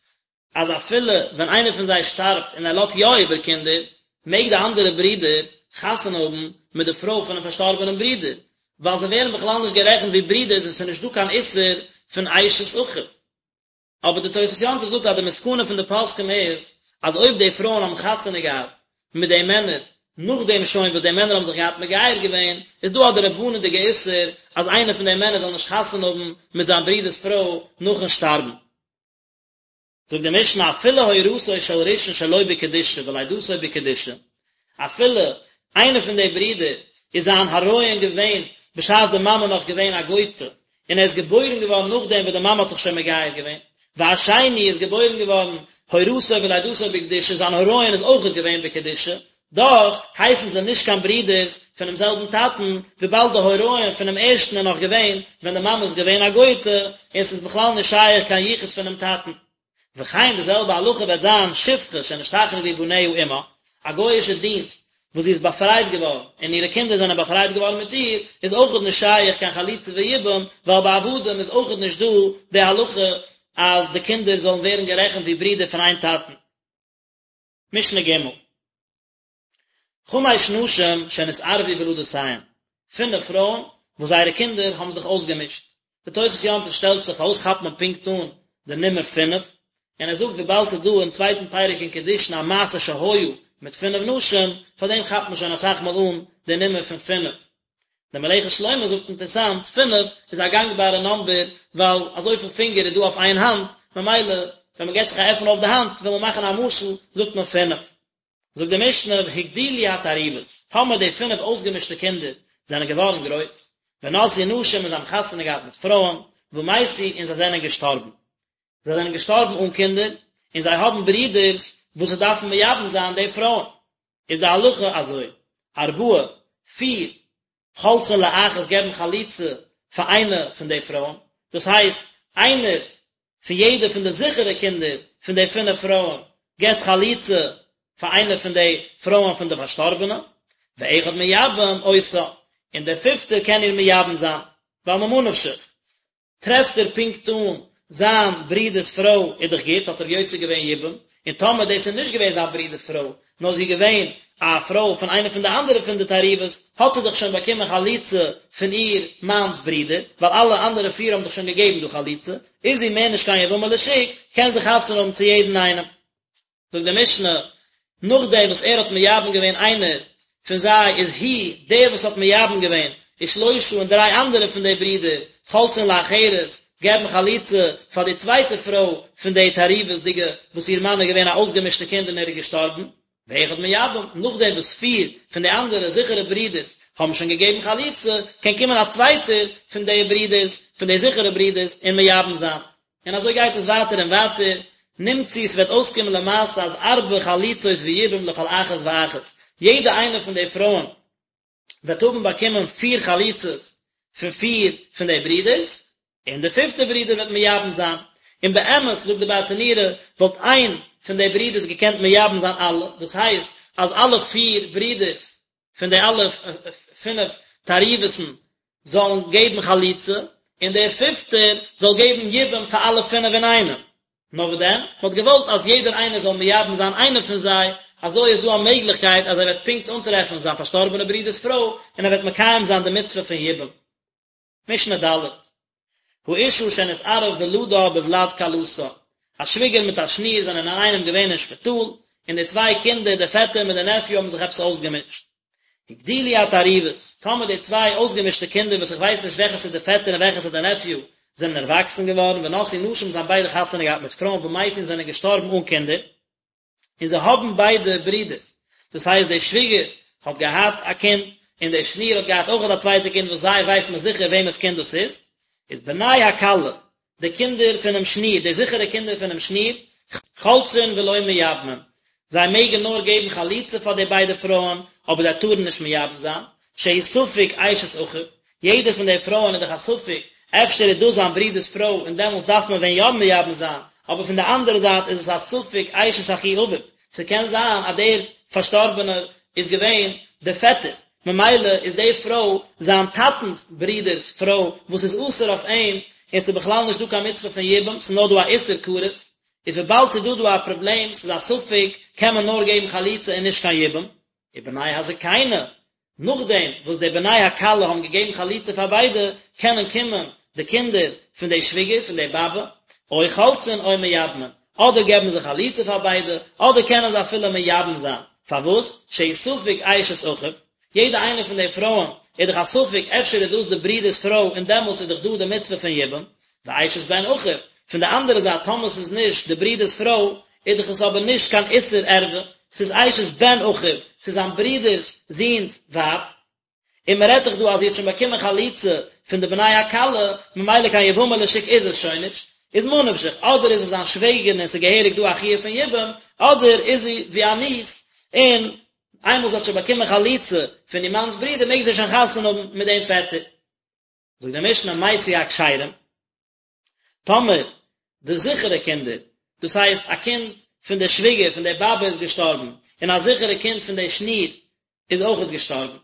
אז אפילו ווען איינער פון זיי שטארבט און ער לאזט יא איבער קינדער, מעג די אנדערע ברודער חתונה האבן מיט די פרוי פונעם פארשטארבענעם ברודער, ווייל זיי ווערן בכלל נישט גערעכנט ווי ברידערס און ס'איז נישט דא קיין איסור פון אשת אחיו. אבער די תוספות יום טוב זאגט אז די מסקנא פון די פוסקים איז אז אויב די פרויען האבן חתונה געהאט מיט די מענער נאכדעם שוין וואס די מענער האבן זיך געהאט מגייר געווען, איז דא א דרבנן'דיגע איסור אז איינער פון די מענער זאל נישט חתונה האבן מיט זיין ברודער'ס פרוי נאכן שטארבן. זאגט די משנה אפילו הורתו של ראשון שלא בקדושה ולידתו בקדושה, אפילו איינער פון די ברידער איז זיין הריון געווען בשעת די מאמע נאך געווען א גויטע, און ער איז געבוירן געווארן נאכדעם וואס די מאמע האט זיך שוין מגייר געווען, והשני איז געבוירן געווארן הורתו ולידתו בקדושה, זיין הריון איז אויכעט געווען בקדושה, דאך הייסן זיי נישט קיין ברידערס פונעם זעלבן טאטן, וויבאלד די הריון פונעם ערשטן איז נאך געווען ווען די מאמע איז געווען א גויטע, און ס'איז בכלל נישט שייך קיין יחוס פונעם טאטן. וכן די זעלבע הלכה וועט זיין שפחה שנשתחררו בניה עמה, א גוי'אישע דינסט וואס זי איז באפרייט געווארן און אירע קינדער זענען באפרייט געווארן מיט איר, איז אויכעט נישט שייך קיין חליצה ויבום, ווייל ביי עבדים איז אויכעט נישט דא די הלכה אז די קינדער זאלן ווערן גערעכנט ווי ברידער פון איין טאטן. משנה ג'. חמש נשים שנתערבו ולדותיהן, פינף פרויען וואס זייערע קינדער האבן זיך אויסגעמישט. די תוס' יום טוב שטעלט זיך פארוואס כאפט מען פונקט אן די נומער פינף, און ער זאגט וויבאלד ס'איז דא אין צווייטן פרק אין קידושין א מעשה שהיה מיט פינף נשים, פארדעם כאפט מען שוין אסאך מאל אן די נומער פון פינף. דער מלאכת שלמה זאגט אינטערסאנט, פינף איז א גאנגבארע נאמבער ווייל אזויפיל פינגער איז דא אויף איין האנט, ממילא ווען מען געבט זיך א עפן אויף די האנט וויל מען מאכן א משל זאגט מען פינף. זאגט די משנה והגדילו התערובות, טאמער די פינף אויסגעמישטע קינדער זענען געווארן גרויס, ונשאו נשים און זיי האבן חתונה געהאט מיט פרויען, ומתו און זיי זענען געשטארבן. זיי זענען געשטארבן אן קינדער, און זיי האבן ברידערס וואס זיי דארפן מייבם זיין די פרויען. איז די הלכה אזוי, ארבעה, פיר, חולצין לאחת געבן חליצה פאר איינע פון די פרויען, דאס הייסט, איינער פון יעדע פון די זיכערע קינדער פון די פינף פרויען געבט חליצה פאר איינע פון די פרויען פון די פארשטארבענע, ואחד מייבם אותה, און דער פיפטער קען איר מייבם זיין, ווייל ממה נפשך, טרעפט ער פונקט אן זיין ברודער'ס פרוי איז דאך גוט, האט ער יוצא געווען יבום, און טאמער דאס איז נישט געווען זיין ברודער'ס פרוי, נאר זי איז געווען א פרוי פון איינע פון די אנדערע פון די תערובות, האט זי דאך שוין באקומען חליצה פון איר מאנ'ס ברודער, ווייל אלע אנדערע פיר האבן דאך שוין געגעבן דא חליצה, איז זי מער נישט קיין יבמה לשוק, קען זי חתונה האבן צו יעדן איינעם. זאגט די משנה, נאכדעם וואס ער האט מייבם געווען איינער פון זיי איז הוא דער וואס האט מייבם געווען ושלושה און דריי אנדערע פון די ברידער חולצין לאחרת געבן חליצה פאר די צווייטע פרוי פון די תערובות'דיגע וואס איר מאן איז געווען א אויסגעמישטע קינד און ער איז געשטארבן, ואחד מייבם, נאכדעם וואס פיר פון די אנדערע זיכערע ברידערס האבן שוין געגעבן חליצה, קען קומען א צווייטער פון די ברידערס, פון די זיכערע ברידערס, און מייבם זיין. און אזוי גייט עס ווייטער און ווייטער, נמצאו ס'וועט אויסקומען למעשה אז ארבע חליצות ויבום לכל אחת ואחת, יעדע איינע פון די פרויען וועט האבן באקומען פיר חליצות פון פיר פון די ברידערס, און די פיפטע ברודער וועט מייבם זיין, און באמת זאגט די ברטנורא וואלט איין פון די ברידערס געקענט מייבם זיין אלע, דאס הייסט אז אלע פיר ברידערס פון די אלע פינף תערובות'ן זאלן געבן חליצה, און דער פיפטער זאל געבן יבום פאר אלע פינף אינאיינעם. נאר וואס דען, מען האט געוואלט אז יעדער איינער זאל מייבם זיין איינע פון זיי, אזוי איז דא א מעגליכקייט אז ער וועט פונקט אנטרעפן זיין פארשטארבענע ברודער'ס פרוי, און ער וועט מקיים זיין די מצוה פון יבום. משנה ד'. האשה שנתערב ולדה בולד כלתה, א שוויגער מיט א שניר זענען אינאיינעם געווען אין שפיטאל, און די צוויי קינדער, דער פעטער מיט דער נעפיו האבן זיך עפעס אויסגעמישט. הגדילו התערובות, טאמער די צוויי אויסגעמישטע קינדער וואס איך ווייס נישט וועלכעס איז דער פעטער און וועלכעס איז דער נעפיו, זענען ערוואקסן געווארן, ונשאו נשים זיי האבן ביידע חתונה געהאט מיט פרויען ומתו און זענען געשטארבן אן קינדער, און זיי האבן ביידע ברידערס, דאס הייסט די שוויגער האט געהאט א קינד, און די שניר האט געהאט אויכעט א צווייטע קינד וואס זיי ווייסט מען זיכער וועמענס קינד דאס איז, איז בני הכלה, די קינדער פונעם שניר, די זיכערע קינדער פונעם שניר, חולצין ולא מייבמין, זיי מעגן נאר געבן חליצה פאר די ביידע פרויען, אבער זיי טארן נישט מייבם זיין, שהוא ספק אשת אחיו, יעדע פון די פרויען איז דאך א ספק, אפשר איז דאס זיין ברודער'ס פרוי און דעמאלטס דארף מען ווען יא מייבם זיין, אבער פון די אנדערע זייט איז עס א ספק אשת אחי אביו, ס'קען זיין אז דער פארשטארבענער איז געווען דער פעטער, ממילא איז די פרוי זיין טאטנ'ס ברודער'ס פרוי וואס איז אסור אויף אים, און ס'איז בכלל נישט דא קיין מצוה פון יבום, ס'איז נאר דא א איסור כרת, איז וויבאלד ס'איז דא דא א פראבלעם, ס'איז א ספק, קען מען נאר געבן חליצה און נישט קיין יבום. ובני הזקנה. נאכדעם וואס די בני הכלה האבן געגעבן חליצה פאר ביידע, קענען קומען די קינדער פון די שוויגער, פון די באבע, או חולצין או מייבמין, אדער געבן זיי חליצה פאר ביידע, אדער קענען זיי אפילו מייבם זיין. פארוואס? שהוא ספק אשת אחיו, יעדע איינע פון די פרויען איז דאך א ספק אפשר איז דאס די ברודער'ס פרוי און דעמאלטס איז דאך דא די מצוה פון יבום, ואשת בן אחיו, פון די אנדערע זייט טאמער ס'איז נישט די ברודער'ס פרוי איז דאך עס אבער נישט קיין איסור ערווה, ס'איז אשת בן אחיו, ס'איז זיין ברודער'ס זוהן'ס ווייב, און מ'רעדט דאך דא אז זי האט שוין באקומען חליצה פון די בני הכלה, ממילא קיין יבמה לשוק איז עס שוין נישט, איז ממה נפשך, אדער איז עס זיין שוועגערין און ס'איז געהעריג דא א חיוב פון יבום, אדער איז זי ווי א ניס, און איינמאל זי האט שוין באקומען חליצה פון איר מאנ'ס ברודער מעג זי שוין חתונה האבן מיט דעם פעטער. זאגט די משנה מתו הכשרים, טאמער די זיכערע קינדער, דאס הייסט א קינד פון די שוויגער פון די באבע איז געשטארבן, און א זיכערע קינד פון די שניר איז אויכעט געשטארבן.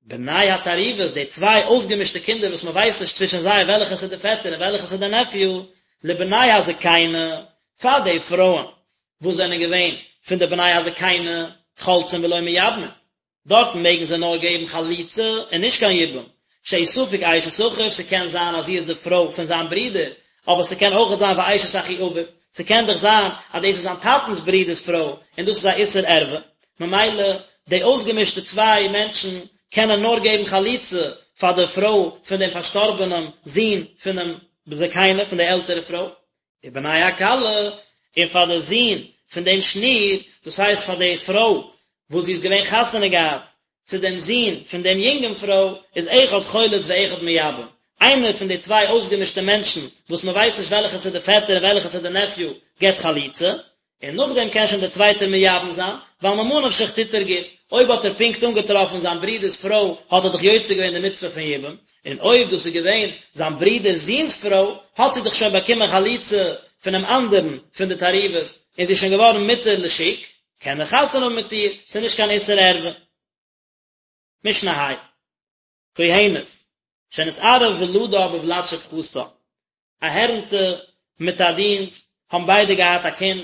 בני התערובת, די צוויי אויסגעמישטע קינדער וואס מען ווייסט נישט צווישן זיי וועלכעס איז די פעטער און וועלכעס איז די נעפיו, לבני הזקנה, פאר די פרויען וואס זענען געווען פון די בני הזקנה, חולצין ולא מייבמין, דארטן מעגן זיי נאר געבן חליצה און נישט קיין יבום, שהוא ספק אשת אחיו, ס'קען זיין אז זי איז די פרוי פון זיין ברודער, אבער ס'קען אויכעט זיין ואשת אחי אביו, ס'קען דאך זיין אז דאס איז זיין טאטנ'ס ברודער'ס פרוי און דאס איז א איסור ערווה, ממילא די אויסגעמישטע צוויי מענטשן קענען נאר געבן חליצה פאר די פרוי פון דעם פארשטארבענעם זון פונעם זקנה, פון די עלטערע פרוי, ובני הכלה, און פאר די זון פון דעם שניר, דאס הייסט פאר די פרוי וואס זי איז געווען חתונה געהאט צו דעם זון פון דעם יונגן פרוי, איז אחד חולץ ואחד מייבם, איינער פון די צוויי אויסגעמישטע מענטשן, וואס מען ווייסט נישט וועלכעס איז די פעטער און וועלכעס איז די נעפיו, געבט חליצה, און נאכדעם קען שוין דער צווייטער מייבם זיין, ווייל ממה נפשך טוט ער גוט, אויב האט ער פונקט אנגעטראפן זיין ברודער'ס פרוי האט ער דאך יוצא געווען די מצוה פון יבום, און אויב דאס איז געווען זיין ברודער'ס זון'ס פרוי, האט זי דאך שוין באקומען חליצה פונעם אנדערן פון די תערובות, און זי איז שוין געווארן מותר לשוק, קען ער חתונה האבן מיט איר, ס'איז נישט קיין איסור ערווה. משנה ה'. כהנת, שנתערב ולדה בולד שפחתה, א הערנטע מיט א דינסט האבן ביידע געהאט א קינד,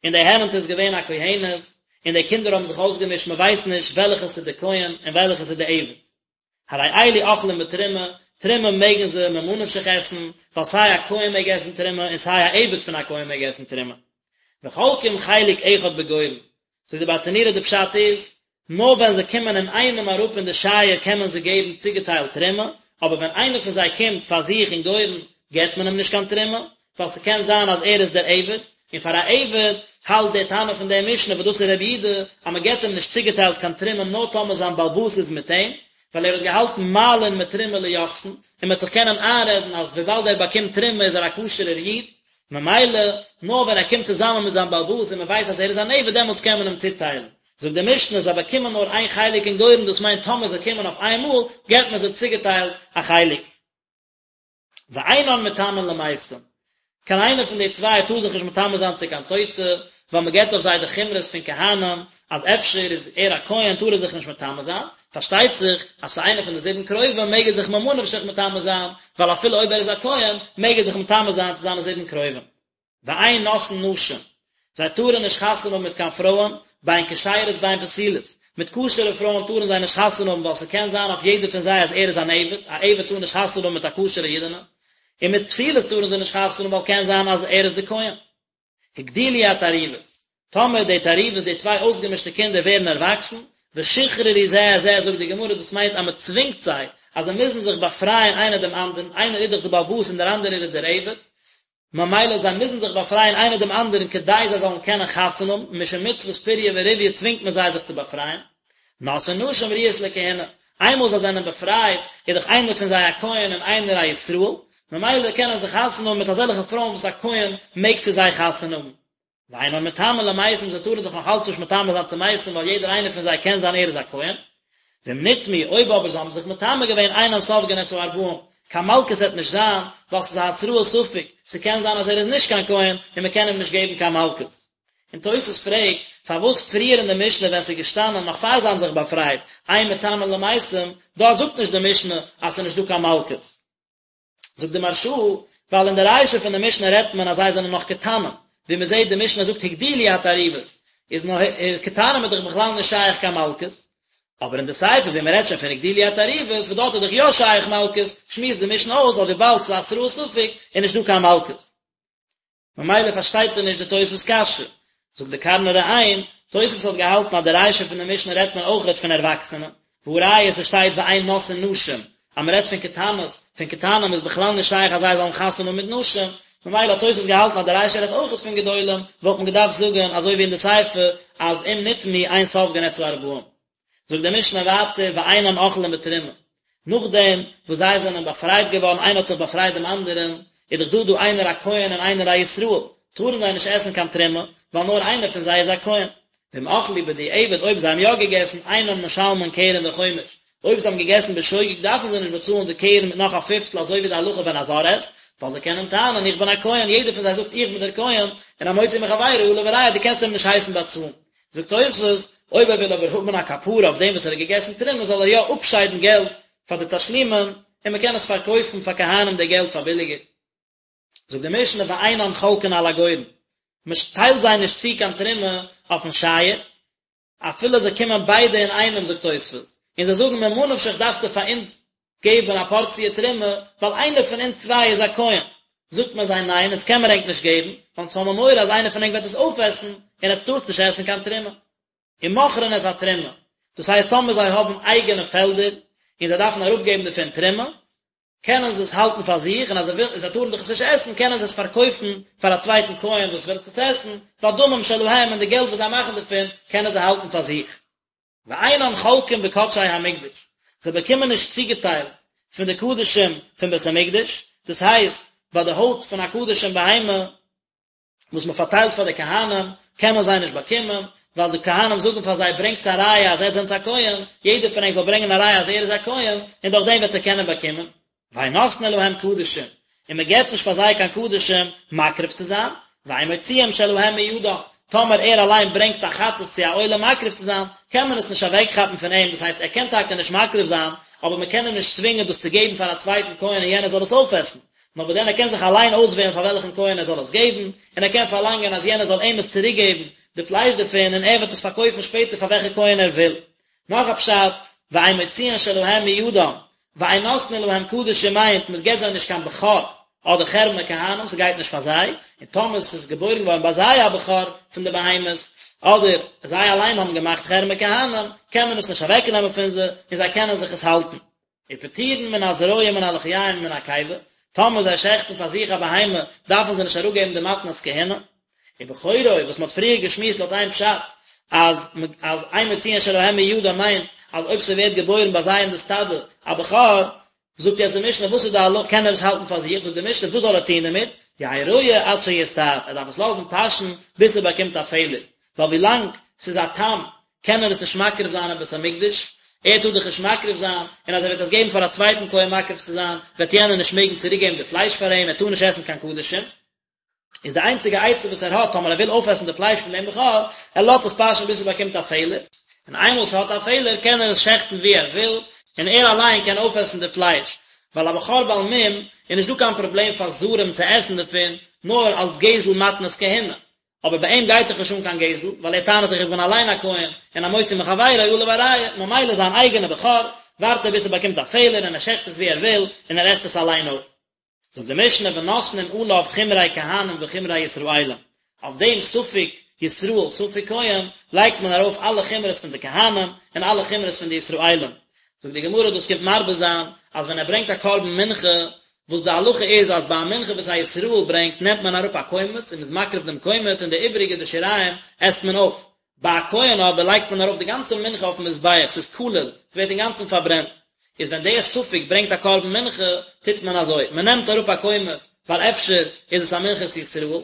און די הערנטע איז געווען א כהנת, און די קינדער האבן זיך אויסגעמישט מען ווייסט נישט וועלכעס איז די כהן און וועלכעס איז די עבד. הרי אלו אוכלים בתרומה, תרומה מעגן זיי ממה נפשך עסן, ווייל סיי א כהן מעג עסן תרומה און סיי א עבד פון א כהן מעג עסן תרומה. וחולקים חלק אחד בגורן, זאגט די ברטנורא די פשט איז, נאר ווען זיי קומען אינאיינעם אראפ אין די שייער קען מען זיי געבן צוגעטיילט תרומה, אבער ווען איינער פון זיי קומט פאר זיך אין גורן געבט מען אים נישט קיין תרומה, ווייל ס'קען זיין אז ער איז דער עבד, און פאר א עבד האלט דער תנא פון דער משנה וואס דאס איז רבי יהודה אז מען געבט אים נישט צוגעטיילט קיין תרומה נאר טאמער זיין בעל הבית איז מיט אים, ווייל ער האט געהאלטן מעלין מתרומה ליוחסין, און מען וועט זיך קענען איינרעדן אז וויבאלד ער באקומט תרומה איז ער א כשר'ער איד, ממילא נאר ווען ער קומט צוזאמען מיט זיין בעל הבית און מען ווייסט אז ער איז אן עבד דעמאלטס קען מען אים צוטיילן. זאגט די משנה זיי באקומען נאר איין חלק אין גורן דאס מיינט טאמער זיי קומען אויף איין מאל געבט מען זיי צוגעטיילט א חלק. ואינן מטמאין למתים, קיין איינער פון די צוויי טאר זיך נישט מטמא זיין צו קיין טויטע, ווייל מען געבט אויף זיי די חומרות פון כהנים, אז אפשר איז ער א כהן טאר ער זיך נישט מטמא זיין, פארשטייט זיך אז צו איינער פון די זיבן קרובים מעג ער זיך ממה נפשך מטמא זיין, ווייל אפילו אויב ער איז א כהן מעג ער זיך מטמא זיין צו זיינע זיבן קרובים. ואין נושאין נשים, זיי טארן נישט חתונה האבן מיט קיין פרויען, בין כשרות בין פסולות, מיט כשר'ע פרויען טארן זיי נישט חתונה האבן ווייל ס'קען זיין אויף יעדער פון זיי אז ער איז אן עבד, א עבד טאר נישט חתונה האבן מיט א כשר'ע אידענע, און מיט פסולות טארן זיי נישט חתונה האבן ווייל קען זיין אז ער איז די כהן. הגדילו התערובות, טאמער די תערובות, די צוויי אויסגעמישטע קינדער ווערן ערוואקסן, ושחררו זה את זה, זאגט די גמרא, דאס מיינט אז מען צווינגט זיי אז זיי מוזן זיך באפרייען איינער דעם אנדערן, איינער איז דאך די בעל הבית און דער אנדערער איז דער עבד, ממילא זיי מוזן זיך באפרייען איינער דעם אנדערן כדי זיי זאלן קענען חתונה האבן, משום מצוות פריה ורביה צווינגט מען זיי זיך צו באפרייען. נושאין נשים ראויות לכהונה, איינמאל זיי זענען באפרייט איז דאך איינער פון זיי א כהן און איינער א ישראל, ממילא קענען זיי חתונה האבן מיט אזעלכע פרויען וואס א כהן מעג צו זיי חתונה האבן. ואינן מטמאין למתים זיי טארן זיך נאך אלץ נישט מטמא זיין צו מתים ווייל יעדער איינער פון זיי קען זיין ער איז א כהן. ואם נטמאו אויב אבער זיי האבן זיך מטמא געווען אינן סופגין את הארבעים, קיין מלקות וועט נישט זיין, ווייל ס'איז א התראת ספק, ס'קען זיין אז ער איז נישט קיין כהן און מ'קען אים נישט געבן קיין מלקות. און תוס' פרעגט, פארוואס פריער אין די משנה ווען ס'איז געשטאנען נאך פאר זיי האבן זיך באפרייט, אין מטמאין למתים, דארט זאגט נישט די משנה אז ס'איז נישט דא קיין מלקות? זאגט די מהרש"א, ווייל אין די רישא פון די משנה רעדט מען אז זיי זענען נאך קטנים, ווי מען זעט די משנה זאגט הגדילו התערובות, איז נאך קטנים איז דאך בכלל נישט שייך קיין מלקות. אבער אין די סיפא ווי מען רעדט שוין פון הגדילו התערובות וואס דארט איז דאך יא שייך מלקות, שמועסט די משנה אויס אז וויבאלד ס'איז התראת ספק איז נישט דא קיין מלקות. ממילא פארשטייט ער נישט די תוספות קשיא. זאגט די קרני ראם, תוספות האט געהאלטן אז די רישא פון די משנה רעדט מען אויכעט פון ערוואקסענע, והא ראיה ס'שטייט ואין נושאין נשים, אז מ'רעדט פון קטנות, פון קטנים איז בכלל נישט שייך אז זיי זאלן חתונה האבן מיט נשים, ממילא האט תוספות געהאלטן אז די רישא רעדט אויכעט פון גדולים, וואלט מען געדארפט זאגן אזוי ווי אין די סיפא אז אם נטמאו אין סופגין את הארבעים. זאגט די משנה ווייטער ואינן אוכלין בתרומה, נאכדעם וואס זיי זענען באפרייט געווארן איינער האט זיך באפרייט דעם אנדערן, איז דאך דא דא איינער א כהן און איינער א ישראל, טארן זיי נישט עסן קיין תרומה, ווייל נאר איינער פון זיי איז א כהן. ואם אכלו בדיעבד אויב זיי האבן יא געגעסן, אינן משלמין קרן וחומש, אויב זיי האבן געגעסן בשוגג דארפן זיי נישט באצאלן די קרן מיט נאך א פיפטל אזוי ווי די הלכה ווען א זר עסט, ווייל זיי קענען טענה'ן איך בין א כהן, יעדער פון זיי זאגט איך בין דער כהן, און המוציא מחבירו עליו הראיה דו קענסט אים נישט הייסן באצאלן. זאגט תוספות, אויב ער וויל אבער האבן א כפרה אויף דעם וואס ער האט געגעסן תרומה זאל ער יא אפשיידן געלט פאר די תשלומין און מען קען עס פארקויפן פאר כהנים די געלט פאר ביליגער. זאגט די משנה ואינן חולקין על הגורן, מען טיילט זיי נישט צו קיין תרומה אויפן שייער, אפילו זיי קומען ביידע אינאיינעם זאגט תוספות, און זיי זאגן ממה נפשך דארפסטו פאר אונז געבן א פארציע תרומה, ווייל איינער פון אונז צוויי איז א כהן. זאגט מען זיי ניין, אונז קען מיר ענק נישט געבן, ווייל אונז האבן מורא אז איינער פון ענק וועט עס אויפעסן, און עטס טארטס נישט עסן קיין תרומה. ומוכרין את התרומה, דאס הייסט טאמער זיי האבן אייגענע פעלדער, און זיי דארפן אראפגעבן דערפון תרומה, קענען זיי עס האלטן פאר זיך, און אז זיי ווילן, זיי טארן דאך עס נישט עסן, קענען זיי עס פארקויפן פאר א צווייטן כהן וואס וויל עס עסן, והדמים שלהם, און די געלט וואס זיי מאכן דערפון, קענען זיי האלטן פאר זיך. ואינן חולקין בקדשי המקדש, זיי באקומען נישט צוגעטיילט פון די קדשים פון בית המקדש, דאס הייסט, ביי די הויט פון א קדשים בהמה וואס מען פארטיילט פאר די כהנים, קענען זיי נישט באקומען, ווייל די כהנים זאגן פאר זיי, ברענגטס א ראיה אז עטס זענטס א כהן, יעדער פון ענק זאל ברענגען א ראיה אז ער איז א כהן, און דורך דעם וועט ער קענען באקומען. ואין נותנין להם קדשים, און מען געבט נישט פאר זיי קיין קדשים מקריב צו זיין, ואין מוציאים שלהם מידם, טאמער ער אליין ברענגט א חטאת צו א עולה מקריב צו זיין, קען מען עס נישט אוועקכאפן פון אים, דאס הייסט ער קען טאקע נישט מקריב זיין, אבער מען קען אים נישט צווינגען דאס צו געבן פאר א צווייטן כהן און יענער זאל עס אויפעסן, נאר וואס דען ער קען זיך אליין אויסוועלן פאר וועלכן כהן ער זאל עס געבן, און ער קען פארלאנגען אז יענער זאל אים עס צוריקגעבן די פלייש דערפון און ער וועט עס פארקויפן שפעטער פאר וועלכע כהן ער וויל. נאך א פשט, ואין מוציאין שלהם מידם, ואין נותנין להם קדשים מיינט מען געבט זיי נישט קיין בכור אדער חרמי כהנים ס'גייט נישט פאר זיי, און טאמער ס'איז געבוירן געווארן ביי זיי א בכור פון די בהמות, אדער זיי אליין האבן געמאכט חרמי כהנים, קען מען עס נישט אוועקנעמען פון זיי, און זיי קענען זיך עס האלטן. ופטורין מן הזרוע ומן הלחיים ומן הקיבה, טאמער זיי שעכטן פאר זיך א בהמה, דארפן זיי נישט אראפגעבן די מתנות כהונה. ובכורו, וואס מ'האט פריער געשמועסט לויט איין פשט, אז אז אין מוציאין שלהם מידם מיינט אז אויב ס'ווערט געבוירן ביי זיי אין די סטאדע א בכור, זאגט יעצט די משנה וואס איז די הלכה, קען ער עס האלטן פאר זיך, זאגט די משנה וואס זאל ער טון דערמיט, יהא רועה עד שיסתאב, ער דארף עס לאזן פאשן ביז ס'באקומט א פעלער, ווייל ווילאנג ס'איז א תם קען ער עס נישט מקריב זיין אין בית המקדש, ער טאר דאך נישט מקריב זיין, און אז ער וועט עס געבן פאר א צווייטן כהן מקריב צו זיין, וועט יענער נישט מעגן צוריק געבן די פלייש פאר אים, ער טאר נישט עסן קיין קדשים. איז די איינציגע עצה וואס ער האט טאמער ער וויל אויפעסן די פלייש פון דעם בכור, ער לאזט עס פאשען ביז ס'באקומט א פעלער, און איינמאל ס'האט א פעלער קען ער עס שעכטן ווי ער וויל, און ער אליין קען אויפעסן די פלייש, ווייל א בכור בעל מום איז נישט דא קיין פראבלעם פאר זרים צו עסן דערפון, נאר אלס גזל מתנות כהונה, אבער ביי אים גייט דאך נישט אן קיין גזל, ווייל ער טענה'ט דאך איך בין אליין א כהן, און המוציא מחבירו עליו הראיה, ממילא זיין אייגענע בכור, ווארט ער ביז ס'באקומט א פעלער און ער שעכט עס ווי ער וויל, און ער עסט עס אליין אויף. זאגט די משנה ונותנין עליו חומרי כהנים וחומרי ישראלים, אויף דעם ספק ישראל ספק כהן לייגט מען ארויף אלע חומרות פון די כהנים און אלע חומרות פון די ישראלים, זאגט די גמרא דאס קומט מרבה זיין אז ווען ער ברענגט א קרבן מנחה, וואס די הלכה איז אז ביי א מנחה וואס א ישראל ברענגט נעמט מען אראפ א קומץ און מ'איז מקריב דעם קומץ און די איבעריגע די שיריים עסט מען אויף, ביי א כהן אבער לייגט מען ארויף די גאנצע מנחה אויפן מזבח, ס'איז כליל, ס'ווערט אינגאנצן פארברענט. איז ווען דער ספק ברענגט א קרבן מנחה, טוט מען אזוי, מען נעמט אראפ א קומץ, ווייל אפשר איז עס א מנחת ישראל,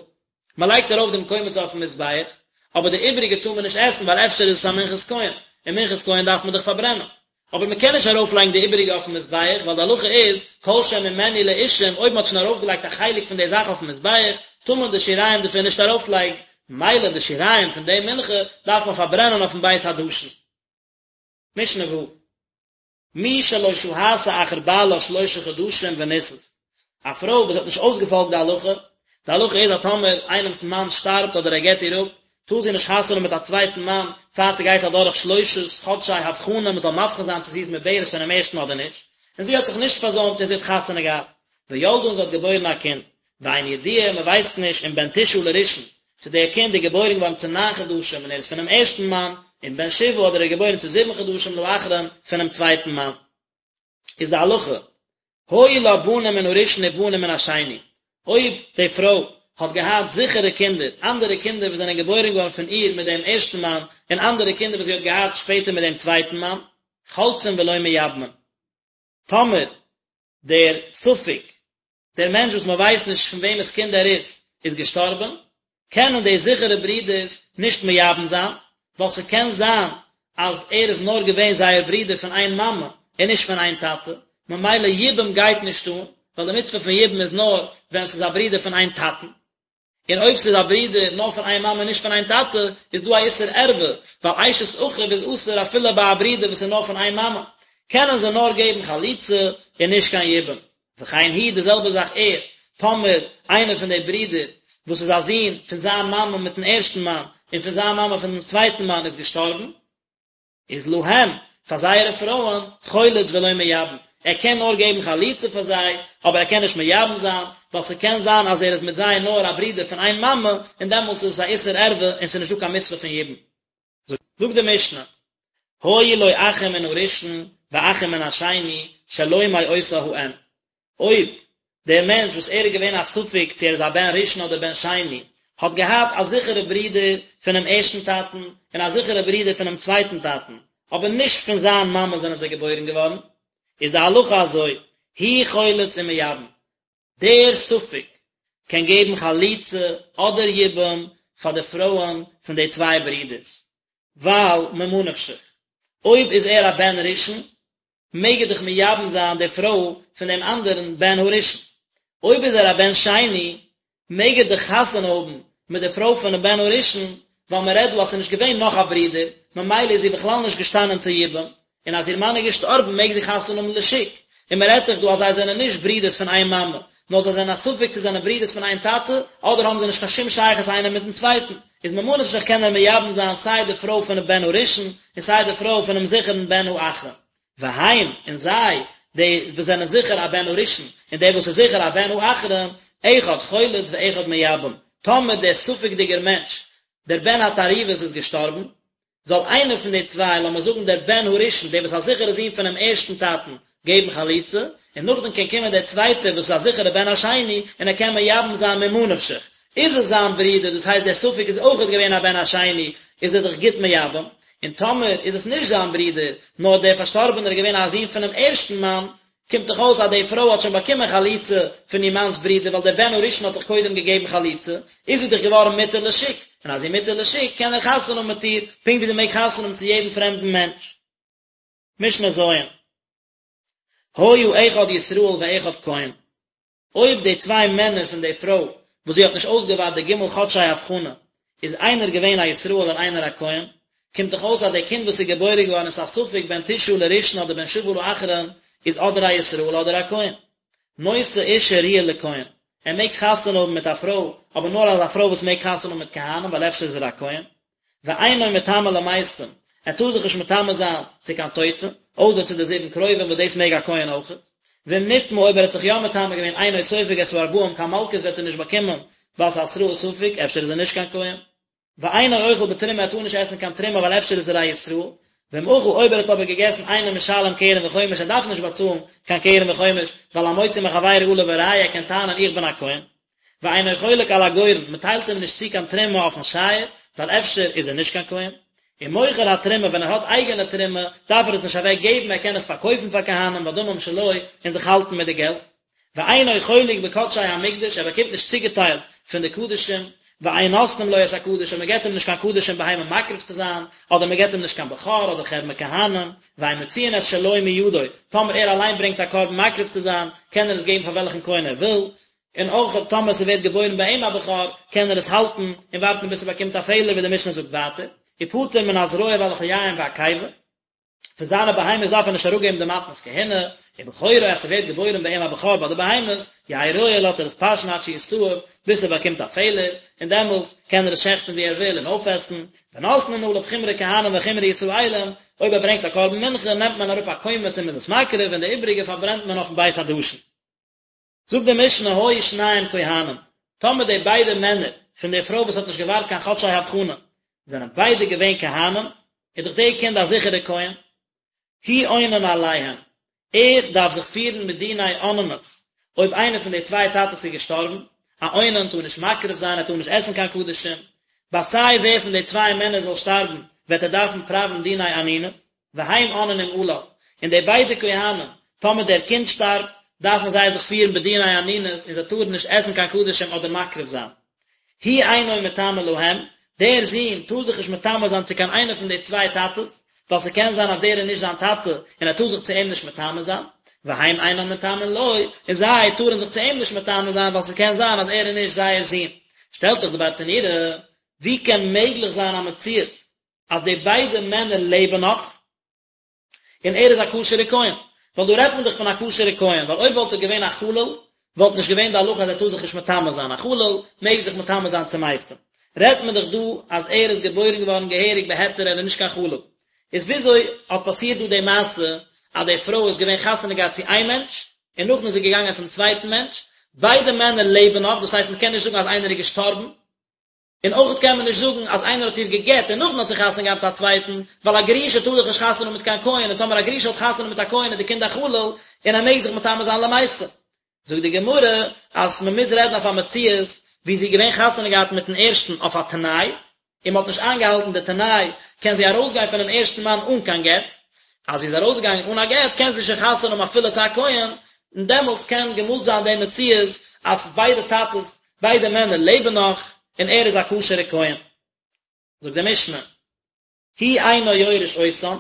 מען לייגט ארויף דעם קומץ אויפן מזבח, אבער די איבעריגע טאר מען נישט עסן ווייל אפשר איז עס א מנחת כהן, און מנחת כהן דארף מען דאך פארברענען. אבער מען קען נישט ארויפלייגן די איבעריגע אויפן מזבח, ווייל די הלכה איז, כל שממנו לאישים, אויב מען האט שוין ארויפגעלייגט א חלק פון די זאך אויפן מזבח, טאר מען די שיריים דערפון נישט ארויפלייגן, ממילא די שיריים פון די מנחה דארף מען פארברענען אויפן בית הדשן. משנה ו'. מי שלא שהתה אחר בעלה שלשה חדשים ונישאת, א פרוי וואס האט נישט אויסגעפאלגט די הלכה, די הלכה איז אז טאמער איינעמס מאן שטארבט אדער ער גט איר אפ, טאר זי נישט חתונה האבן מיט א צווייטן מאן פאר ס'גייט אדורך שלושת חדשי הבחנה מ'זאל מבחין זיין צו זי איז מעוברת פונעם ערשטן אדער נישט, און זי האט זיך נישט פארזוימט און זי האט חתונה געהאט, וילדה און זי האט געבוירן א קינד, ואין ידוע מ'ווייסט נישט אם בן תשעה לראשון, צו דער קינד איז געבוירן געווארן צו ניין חדשים און ער איז פונעם ערשטן מאן, אם בן שבעה אדער ער איז געבוירן צו זיבן חדשים לאחרון פונעם צווייטן מאן. איז די הלכה, היו לה בנים מן הראשון ובנים מן השני, אויב די פרוי האט געהאט זיכערע קינדער, אנדערע קינדער וואס זענען געבוירן געווארן פון איר מיט דעם ערשטן מאן, און אנדערע קינדער וואס זי האט געהאט שפעטער מיט דעם צווייטן מאן, חולצין ולא מייבמין. טאמער דער ספק דער מענטש וואס מען ווייסט נישט פון וועמענס קינד ער איז, איז געשטארבען, קענען די זיכערע ברידערס נישט מייבם זיין, ווייל ס'קען זיין אז ער איז נאר געווען זייער ברודער פון איין מאמע און נישט פון איין טאטע, ממילא יבום גייט נישט אן, ווייל די מצוה פון יבום איז נאר ווען ס'איז א ברודער פון איין טאטן. און אויב ס'איז א ברודער נאר פון איין מאמע און נישט פון איין טאטע, איז דא א איסור ערווה, ווייל אשת אחיו איז אסור אפילו ביי א ברודער וואס איז נאר פון איין מאמע, קענען זיי נאר געבן חליצה און נישט קיין יבום. וכן הוא, די זעלבע זאך ער, טאמער איינער פון די ברידער וואס איז א זון פון זיין מאמע מיטן ערשטן מאן און פון זיין מאמע פון דעם צווייטן מאן איז געשטארבן, איז להם, פאר זייערע פרויען, חולץ ולא מייבם, ער קען נאר געבן חליצה פאר זיי, אבער ער קען נישט מייבם זיין, ווייל ס'קען זיין אז ער איז מיט זיי נאר א ברודער פון איין מאמע, און דעמאלטס איז עס א איסור ערווה און ס'איז נישטא קיין מצוה פון יבום. זאגט די משנה, היו לו אחים מן הראשון ואחים מן השני שלא מאותה האם, אויב דער מענטש וואס ער איז געווען א ספק צו ער איז א בן ראשון אדער בן שני, האט געהאט א זיכערע ברודער פונעם ערשטן טאטן און א זיכערע ברודער פונעם צווייטן טאטן, אבער נישט פון זיין מאמע זענען זיי געבוירן געווארן, איז די הלכה אזוי, הוא חולץ ומייבם, דער ספק קען געבן חליצה אדער יבום פאר די פרויען פון די צוויי ברודערס, ווייל ממה נפשך, אויב איז ער א בן ראשון, מעג ער דאך מייבם זיין די פרוי פון דעם אנדערן בן הראשון. אויב איז ער א בן שני, מעג ער דאך חתונה האבן מיט די פרוי פונעם בן הראשון, ווייל מען רעדט דא אז ס'איז נישט געווען נאך א ברודער, ממילא איז זי בכלל נישט געשטאנען צו יבום, און אז איר מאן איז געשטארבן מעג זי חתונה האבן לשוק, און מען רעדט דאך דא אז זיי זענען נישט ברודערס פון איין מאמע, נאר זיי זענען א ספק צו זענען ברודערס פון איין טאטע, אדער האבן זיי נישט קיין שום שייכות איינער מיטן צווייטן, איז ממה נפשך קען ער מייבם זיין סיי די פרוי פונעם בן הראשון, און סיי די פרוי פונעם זיכערן בן האחרון. והם, און זיי, די וואס זענען זיכער א בן הראשון, און דער וואס איז זיכער א בן האחרון, אחד חולץ ואחד מייבם, טאמער דער ספק'דיגער מענטש, דער בן התערובת איז געשטארבן, זאל איינער פון די צוויי, לאמיר זאגן דער בן הראשון, דער וואס איז א זיכערע זון פונעם ערשטן טאטן, געבן חליצה, און נאכדעם קען קומען דער צווייטער וואס איז א זיכערע בן השני, און ער קען מייבם זיין ממה נפשך. איז עס זיין ברודער, דאס הייסט דער ספק איז אויכעט געווען א בן השני, איז ער דאך גוט מייבם, און טאמער איז עס נישט זיין ברודער, נאר דער פארשטארבענער איז געווען א זון פונעם ערשטן מאן, קומט דאך אויס אז די פרוי האט שוין באקומען חליצה פון איר מאנ'ס ברודער ווייל דער בן הראשון האט דאך קודם געגעבן חליצה, איז זי דאך געווארן מותר לשוק, און אז זי מותר לשוק קען ער חתונה האבן מיט איר, פונקט ווי זי מעג חתונה האבן צו יעדן פרעמדן מענטש. משנה ז'. היה אחד ישראל ואחד כהן. אויב די צוויי מענער פון די פרוי וואס זי האט נישט אויסגעווארט די ג' חדשי הבחנה איז איינער געווען א ישראל און איינער א כהן, קומט דאך אויס אז די קינד וואס איז געבוירן געווארן איז א ספק בן תשעה לראשון אדער בן שבעה לאחרון איז אדער א ישראל אדער א כהן. נושא אשה ראויה לכהן, ער מעג חתונה האבן מיט א פרוי, אבער נאר אזא פרוי וואס מעג חתונה האבן מיט כהנים ווייל אפשר איז ער א כהן. ואינו מטמא למתים, ער טאר זיך נישט מטמא זיין צו קיין טויטע, אויסער צו די זיבן קרובים וואס דאס מעג א כהן אויכעט. ואם נטמא אויב ער האט זיך יא מטמא געווען אינו סופג את הארבעים קיין מלקות וועט ער נישט באקומען ווייל ס'איז התראת ספק, אפשר איז ער נישט קיין כהן. ואינו אוכל בתרומה ער טאר נישט עסן קיין תרומה ווייל אפשר איז ער א ישראל. ואם אכל אויב ער האט אבער געגעסן אינו משלם קרן וחומש ער דארף נישט באצאלן קיין קרן וחומש ווייל המוציא מחבירו עליו הראיה ער קען טענה'ן איך בין א כהן. ואינו חולק על הגורן, מען טיילט אים נישט צו קיין תרומה אויפן שייער, ווייל אפשר איז ער נישט קיין כהן. ומוכר התרומה, ווען ער האט אייגענע תרומה, דארף ער עס נישט אוועק געבן, ער קען עס פארקויפן פאר כהנים והדמים שלו, און זיך האלטן מיט די געלט. ואינו חולק בקדשי המקדש, ער באקומט נישט צוגעטיילט פון די קדשים, ואין נותנים לו את הקדש, און מען געבט אים נישט קיין קדשים בהמה מקריב צו זיין, אדער מען געבט אים נישט קיין בכור אדער חרמי כהנים, ואין מוציאין את שלו מידו, טאמער ער אליין ברענגט א קרבן מקריב צו זיין, קען ער עס געבן פאר וועלכן כהן ער וויל, און אויך טאמער ס'ווערט געבוירן ביי אים א בכור, קען ער עס האלטן און ווארטן ביז ס'באקומט א פעלער ווי די משנה זאגט ווייטער, ופטור מן הזרוע והלחיים והקיבה. פון זיינע בהמות דארף ער נישט אראפגעבן די מתנות כהונה, ובכורו אז ס'ווערט געבוירן ביי אים א בכור ביי די בהמות, יהא רועה לאזט ער עס פאשן עד שיסתאב, ביז ס'באקומט א פעלער, און דעמאלט קען ער עס שעכטן ווי ער וויל און אויפעסן, ונותנין עליו חומרי כהנים וחומרי ישראלים, אויב ער ברענגט א קרבן מנחה נעמט מען אראפ א קומץ און מ'איז עס מקריב און די איבריגע פארברענט מען אויפן בית הדשן. זאגט די משנה היו שניהם כהנים, טאמער די ביידע מענער פון די פרוי וואס האט נישט געווארט קיין חדשי הבחנה זענען ביידע געווען כהנים, איז דאך די קינד א זיכערע כהן, הוא אונן עליהם, ער דארף זיך פירן מיט דיני אוננות, אויב איינער פון די צוויי טאטעס איז געשטארבן, א אונן טאר נישט מקריב זיין, ער טאר נישט עסן קיין קדשים, ביי סיי ווער פון די צוויי מענער זאל שטארבן, וועט ער דארפן פראווען דיני אנינות. והם אוננים עליו, און די ביידע כהנים, טאמער דער קינד שטארבט, דארפן זיי זיך פירן בדיני אנינות און זיי טארן נישט עסן קיין קדשים אדער מקריב זיין. הוא אינו מטמא להם, דער זון טאר זיך נישט מטמא זיין צו קיין איינער פון די צוויי טאטעס, ווייל ס'קען זיין אז דער איז נישט זיין טאטע און ער טאר זיך צו אים נישט מטמא זיין, והם אינם מטמאין לו, און זיי טארן זיך צו אים נישט מטמא זיין ווייל ס'קען זיין אז ער איז נישט זייער זון. שטעלט זיך די ברטנורא, ווי קען מעגליך זיין א מציאות אז די ביידע מענער לעבן נאך, און ער איז א כשר'ע כהן, ווייל דא רעדט מען דאך פון א כשר'ע כהן, ווייל אויב וואלט ער געווען א חלל, וואלט נישט געווען די הלכה אז ער טאר זיך נישט מטמא זיין, א חלל מעג זיך מטמא זיין צו מתים, רעדט מען דאך דא אז ער איז געבוירן געווארן געהעריג בהיתר ער איז נישט קיין חלל, איז וויאזוי האט פאסירט דא די מעשה אז די פרוי איז געווען חתונה געהאט צו איין מענטש, און נאכדעם איז זי געגאנגען צום צווייטן מענטש, ביידע מענער לעבן נאך, דאס הייסט מען קען נישט זאגן אז איינער איז געשטארבן, און אויך קען מען נישט זאגן אז איינער האט איר גע'גט און נאכדעם האט זי חתונה געהאט מיט א צווייטן, ווייל א גרושה טאר דאך נישט חתונה האבן מיט קיין כהן, און טאמער א גרושה האט חתונה מיט א כהן איז די קינד א חלל, און ער מעג זיך מטמא זיין למתים. זאגט די גמרא אז מען מוז רעדן אויף א מציאות ווי זי איז געווען חתונה געהאט מיטן ערשטן אויף א תנאי, און מען האט נישט איינגעהאלטן די תנאי, קען זי ארויסגיין פונעם ערשטן מאן אן קיין גט, אז זי איז ארויסגעגאנגען אן א גט קען זי שוין חתונה האבן אפילו צו א כהן, און דעמאלטס קען געמאלט זיין די מציאות אז ביידע טאטעס ביידע מענער לעבן נאך, און ער איז א כשר'ע כהן. זאגט די משנה, הוא אינו יורש אותם,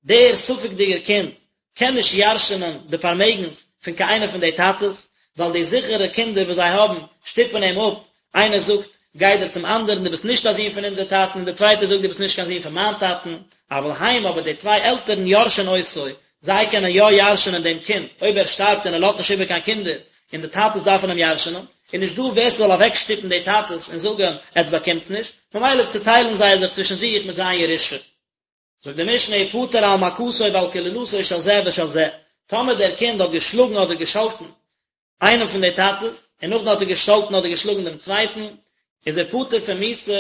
דער ספק'דיגער קינד קען נישט ירש'ענען די פארמעגנס פון קיין איינער פון די טאטעס, ווייל די זיכערע קינדער וואס זיי האבן שטופן אים אפ, איינער זאגט, גיי דיר צום אנדערן, דו ביסט נישט א זון פון אונזער טאטן, און דער צווייטער זאגט, דו ביסט נישט קיין זון פון מיין טאטן, אבל הם, אבער די צוויי עלטערן יורשין אותו, זיי קענען יא ירש'ענען דעם קינד, אויב ער שטארבט און ער לאזט נישט איבער קיין קינדער, און די טאטעס דארפן אים ירש'ענען, איז נישט דא ווער ס'זאל אוועקשטופן די טאטעס און זאגן, עטס באקומטס נישט, ממילא צוטיילן זיי זיך צווישן זיך מיט זיין ירושה. זאגט די משנה ופטור על מכתו ועל קללתו של זה ושל זה, טאמער דער קינד האט געשלאגן אדער געשאלטן איינעם פון די טאטעס, און נאכדעם האט ער געשאלטן אדער געשלאגן דעם צווייטן, איז ער פטור פון מיתה,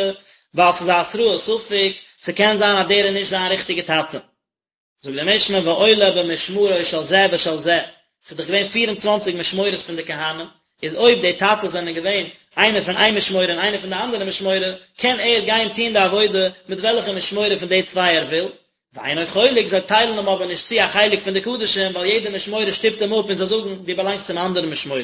ווייל ס'איז א התראת ספק, ס'קען זיין אז דער איז נישט זיין ריכטיגע טאטע. זאגט די משנה ועולה במשמרו של זה ושל זה, ס'איז דאך געווען פיר און צוואנציג משמורות פון די כהנים, איז אויב די טאטעס זענען געווען איינער פון איין משמורה און איינער פון די אנדערע משמורה, קען ער גיין טון די עבודה מיט וועלכע משמורה פון די צוויי ער וויל, ואינו חולק, זיי טיילן אים אבער נישט צו א חלק פון די קדשים, ווייל יעדע משמורה שטופט אים אפ און זיי זאגן, דו באלאנגסט צום אנדערן משמורה.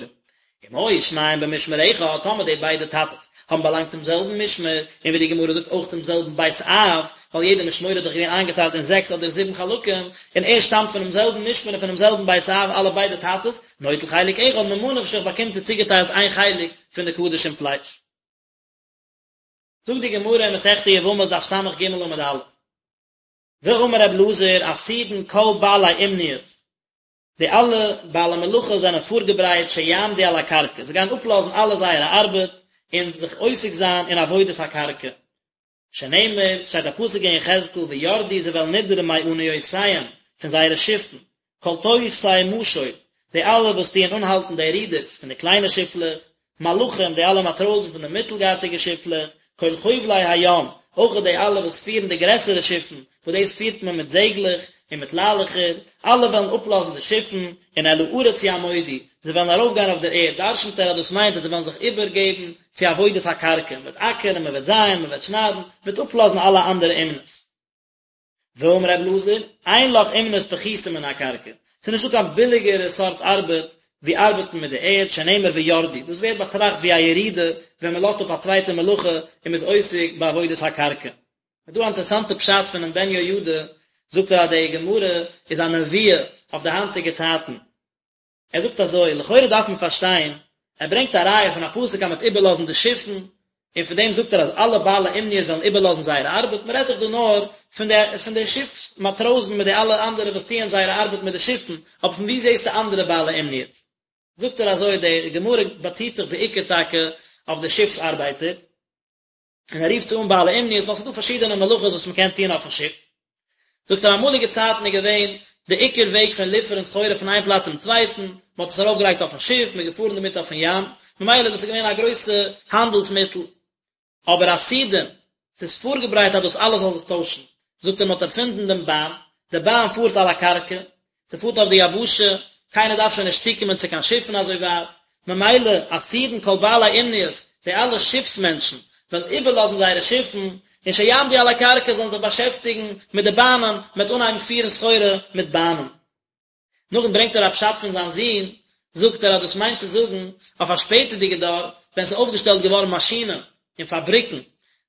אם היו שניהם במשמר אחד, טאמער די ביידע טאטעס האבן באלאנגט צום זעלבן משמר, און ווי די גמרא זאגט אויך צום זעלבן בית אב, ווייל יעדע משמורה איז דאך געווען איינגעטיילט אין זעקס אדער זיבן חלקים, און ער שטאמט פונעם זעלבן משמר און פונעם זעלבן בית אב אלע ביידע טאטעס, נוטל חלק אחד, ממה נפשך באקומט ער צוגעטיילט איין חלק פון די קדשים פלייש. זאגט די גמרא אין מסכת יבמות דף סג עמוד א', ואמר רב אלעזר עתידין כל בעלי אומניות, די אלע בעלי מלאכה זענען פארגעברייט שיעמדו על הקרקע, זיי גייען אפלאזן אלע זייערע ארבעט און זיך עוסק זיין אין עבודת הקרקע, שנאמר, שטייט א פסוק אין יחזקאל וירדו זיי וועלן נידערן מאניותיהם, פון זייערע שיפן, כל תופשי משוט, די אלע וואס טוען אנהאלטן די רודערס פון די קליינע שיפלעך, מלחים, די אלע מאטראזן פון די מיטלגארטיגע שיפלעך, כל חובלי הים, אויך די אלע וואס פירן די גרעסערע שיפן, וואס דאס פירט מען מיט זעגלעך און מיט ליילעכער, אלע וועלן אפלאזן די שיפן, און אל הארץ יעמודו, זיי וועלן ארויפגיין אויף דער ערד, דרשנ'ט ער אז דאס מיינט אז זיי וועלן זיך איבערגעבן צו עבודת הקרקע, מען וועט אקערן, מען וועט זייען, מען וועט שניידן, מען וועט אפלאזן אלע אנדערע אומנות. ואמר ר' אלעזר, אין לך אומנות פחותה מן הקרקע, ס'איז נישטא קיין ביליגערע סארט ארבעט ווי ארבעטן מיט די ערד, שנאמר וירדו, דאס ווערט באטראכט ווי א ירידה ווען מען לאזט אפ א צווייטע מלאכה און מען איז עוסק בעבודת הקרקע. איז דא א אינטערעסאנטע פשט פונעם בן יהוידע, זאגט ער אז די גמרא איז א נבואה אויף די היינטיגע צייטן, ער זאגט אזוי, לכאורה דארף מען פארשטיין, ער ברענגט א ראיה פון א פסוק אז מען וועט איבערלאזן די שיפן, און און פון דעם זאגט ער אז אלע בעלי אומניות וועלן איבערלאזן זייער ארבעט, מען רעדט דאך דא נאר פון די פון די שיפס מאטראזן מיט די אלע אנדערע וואס טוען זייערע ארבעט מיט די שיפן, אבער פון וואו זעסטו אנדערע בעלי אומניות? זאגט ער אזוי, די גמרא באציט זיך בעיקר טאקע אויף די שיפס ארבייטער, און ער רופט זיי אן בעלי אומניות ווייל ס'איז דא פארשידענע מלאכות וואס מ'קען טון אויפן שיף. זאגט ער אמאליגע צייטן איז געווען די עיקר וועג פון ליפערן סחורה פון איין פלאץ צום צווייטן, מ'האט עס ארויפגעלייגט אויפן שיף, מ'איז געפארן דערמיט אויפן ים, ממילא דאס איז געווען א גרויסע האנדלס מיטל. אבער עתידין, ס'איז פארגעברייט אז דאס אלעס זאל זיך טוישן, זאגט ער מ'האט ערפינדן דעם באן, די באן פארט על הקרקע, ס'פארט אויף די יבשה, קיינער דארף שוין נישט צוקומען צו קיין שיפן אזוי ווייט, ממילא עתידין כל בעלי אומניות, די אלע שיפס מענטשן, וועלן איבערלאזן זייערע שיפן, און שיעמדו על הקרקע זאלן זיך באשעפטיגן מיט די באנען, מ'וועט אנהייבן פירן סחורה מיט באנען. נאכדעם ברענגט ער א פשט פון זיין זון, זאגט ער אז דאס מיינט צו זאגן אויף א שפעטערדיגע דור ווען ס'איז אויפגעשטעלט געווארן מאשינען און פאבריקן,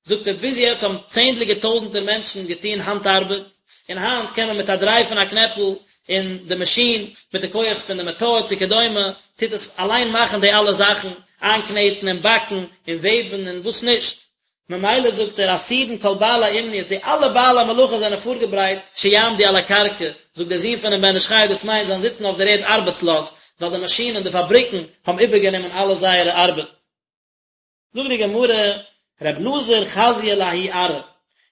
זאגט ער ביז יעצט האבן צענדליגע טויזנטער מענטשן געטון האנט ארבעט, און היינט קען מען מיט א דריי פון א קנעפל אין די מאשין, מיט די כח פון די מאטאר צו כדומה, טוט עס אליין מאכן די אלע זאכן, איינקנעטן און באקן און וועבן און וואס נישט. ממילא זאגט ער עתידין כל בעלי אומניות, די אלע בעלי מלאכה זענען פארגעברייט שיעמדו על הקרקע, זאגט דער זון פונעם בן איש חי דאס מיינט זיי זאלן זיצן אויף דער ערד ארבעטסלאז, ווייל די מאשינען, די פאבריקן, האבן איבערגענומען אלע זייערע ארבעט. זאגט די גמרא, ר' אלעזר חזייה לההוא ארעא,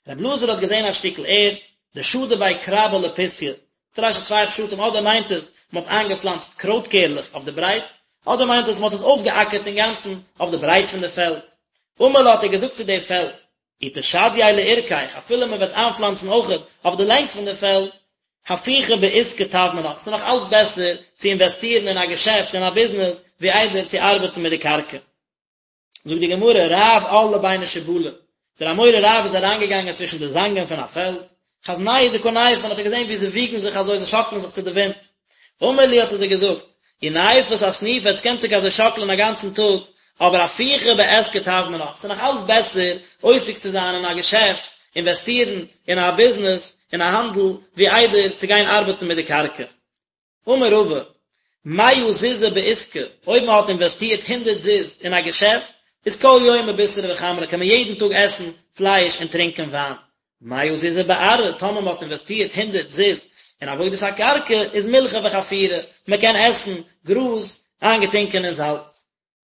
ר' אלעזר האט געזען א שטיקל ערד, דשדי ביה כרבא לפוסיא, זאגט רש"י צוויי פשטים, אדער מיינט עס מען האט איינגעפלאנצט קרויט קערלעך אויף די ברייט, אדער מיינט עס מען האט עס אויפגעאקערט אינגאנצן אויף די ברייט פון די פעלד. אמר לה האט ער געזאגט צו די פעלד, אי תשדייה לאורכיך, אפילו מען וועט איינפלאנצן אויכעט אויף די לענג פון די פעלד, הפוכי בעיסקא טב מינך, ס'איז נאך אלץ בעסער צו אינוועסטירן אין א געשעפט, אין א ביזנעס, ווי איידער צו ארבעטן מיט די קרקע. זאגט די גמרא, רב על לביני שיבלי, דער אמורא רב איז אריינגעגאנגען צווישן די זאנגען פון א פעלד, חזנהו דקא נייפן, האט ער געזען ווי זיי וויגן זיך אזוי, זיי שאקלען זיך צו די ווינט. אמר להו האט ער זיי געזאגט, אי נייפת אסניפי, עטס קענט זיך אזוי שאקלען א גאנצן טאג, אבער הפוכי בעיסקא טב מינך, ס'איז נאך אלץ בעסער עוסק צו זיין אין א געשעפט, אינוועסטירן אין א ביזנעס, אין א האנדל, ווי איידער צו גיין ארבעטן מיט די קרקע. אמר רבא, מאה זוזי בעיסקא, אויב מען האט אינוועסטירט הונדערט זוז אין א געשעפט, איז כל יומא בישרא וחמרא קען מען יעדן טאג עסן פלייש און טרינקען וויין. מאה זוזי בארעא, טאמער מען האט אינוועסטירט הונדערט זוז אין עבודת הקרקע, איז מילחא וחפירא, מען קען עסן גראז איינגעטונקען אין זאלץ.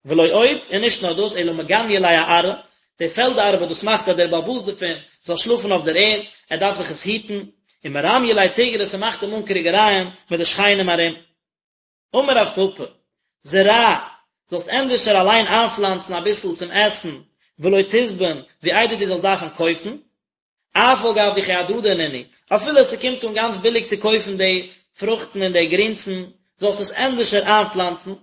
ולא עוד, און נישט נאר דאס, אלא מגניא ליה אארעא, די פעלד ארבעט דאס מאכט אז דער בעל הבית דערפון זאל שלאפן אויף דער ערד, ער דארף זיך עס היטן, ומרמיא ליה תיגרי, ס'מאכט אים אן קריגערייען מיט די שכנים ארום. אמר רב פפא, זרע, זאלסט ענדערשער אליין איינפלאנצן אביסל צום עסן, ולא תזבין, ווי איידער דו זאלסט דארפן קויפן. אף על גב דכי הדדי נינהו, אפילו ס'קומט אן גאנץ ביליג צו קויפן די פרוכטן און די גרינסן, זאלסט עס ענדערשער איינפלאנצן,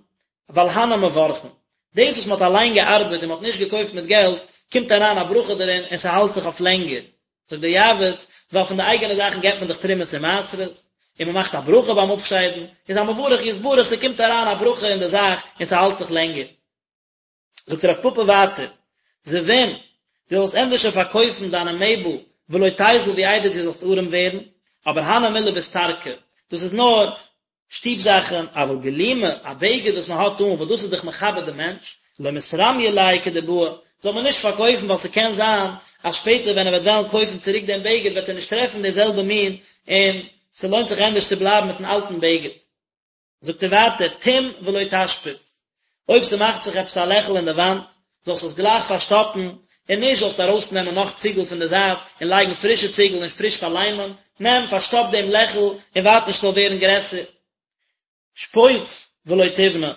ווייל הני מברכין. דאס וואס מ'האט אליין געארבעט און מ'האט נישט געקויפט מיט געלט, קומט אריין א ברכה דערין און ס'האלט זיך אויף לענגער. זאגט דער יעבץ, ווייל פון די אייגענע זאכן געבט מען דאך תרומות און מעשרות, און מ'מאכט א ברכה ביים אפשיידן, איז המברך יתברך, ס'קומט אריין א ברכה אין די זאך און ס'האלט זיך לענגער. זאגט רב פפא ווייטער, זבין, דו זאלסט ענדערשער פארקויפן דיינע מעבל ולא תיזיל ווי איידער דו זאלסט ארעם ווערן, אבער הני מילי ביסתרקי, דאס איז נאר שטוב זאכן, אבל גלימא, א בגד וואס מען האט אן, וואס דאס איז דאך מכבד דעם מענטש, לא מתרמיא ליה כדבעי, זאל מען נישט פארקויפן ווייל ס'קען זיין אז שפעטער ווען ער וועט וועלן קויפן צוריק דעם בגד וועט ער נישט טרעפן די זעלבע מין און ס'לוינט זיך ענדערש צו בלייבן מיטן אלטן בגד. זאגט ער ווייטער, טום ולא תשפיץ, אויב ס'מאכט זיך עפעס א לעכל אין די וואנט, זאלסט עס גלייך פארשטאפן, און נישט זאלסט ארויסנעמען נאך ציגל פון די זייט און לייגן פרישע ציגל און פריש פארליימען, נעם, פארשטאפ דעם לעכל און ווארט נישט ס'זאל ווערן גרעסער. שפוץ ולא תבנה,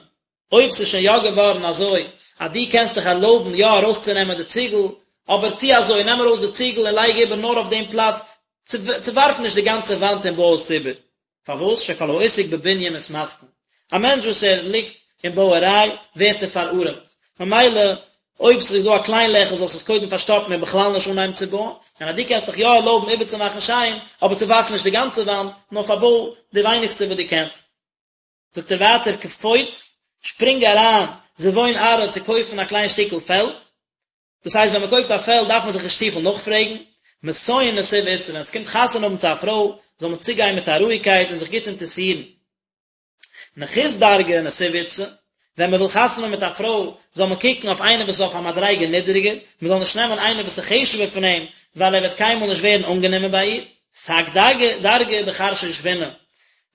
אויב ס'איז שוין יא געווארן אזוי אז דו קענסט דיך ערלויבן יא ארויסצונעמען די ציגל, אבער טו אזוי, נעם ארויס די ציגל און לייג איבער נאר אויף דעם פלאץ, צעווארף נישט די גאנצע וואנט און בוי עס איבער. פארוואס שכל העוסק בבנין מתמסכן, א מענטש וואס ער ליגט אין בויעריי ווערט ער פארארעמט, ממילא אויב ס'איז דא א קליין לעכל זאלסטו עס קודם פארשטאפן און בכלל נישט אנהייבן צו בויען, און אז דו קענסט דיך יא ערלויבן איבערצומאכן שיין, אבער צעווארף נישט די גאנצע וואנט, נאר פארבוי די ווייניגסטע וואס דו קענסט. זאגט ער ווייטער קפוץ, שפרינג אריין, זבון ארעא צו קויפן א קליין שטיקל פעלד, דאס הייסט ווען מען קויפט א פעלד דארף מען זיך נישט צופיל נאכפרעגן, מתון נסיב אתתא, ווען עס קומט חתונה האבן צו א פרוי זאל מען צוגיין מיט א רואיגקייט און זיך גוט אינטערסירן. נחות דרגא נסיב אתתא, ווען מען וויל חתונה האבן מיט א פרוי זאל מען קוקן אויף איינער וואס איז אויף א מדריגה נידעריגער, מען זאל נישט נעמען איינער וואס איז חשוב'ער פון אים, ווייל ער וועט קיינמאל נישט ווערן אנגענומען ביי איר. סק דרגא דרגא בחרשא שבינא,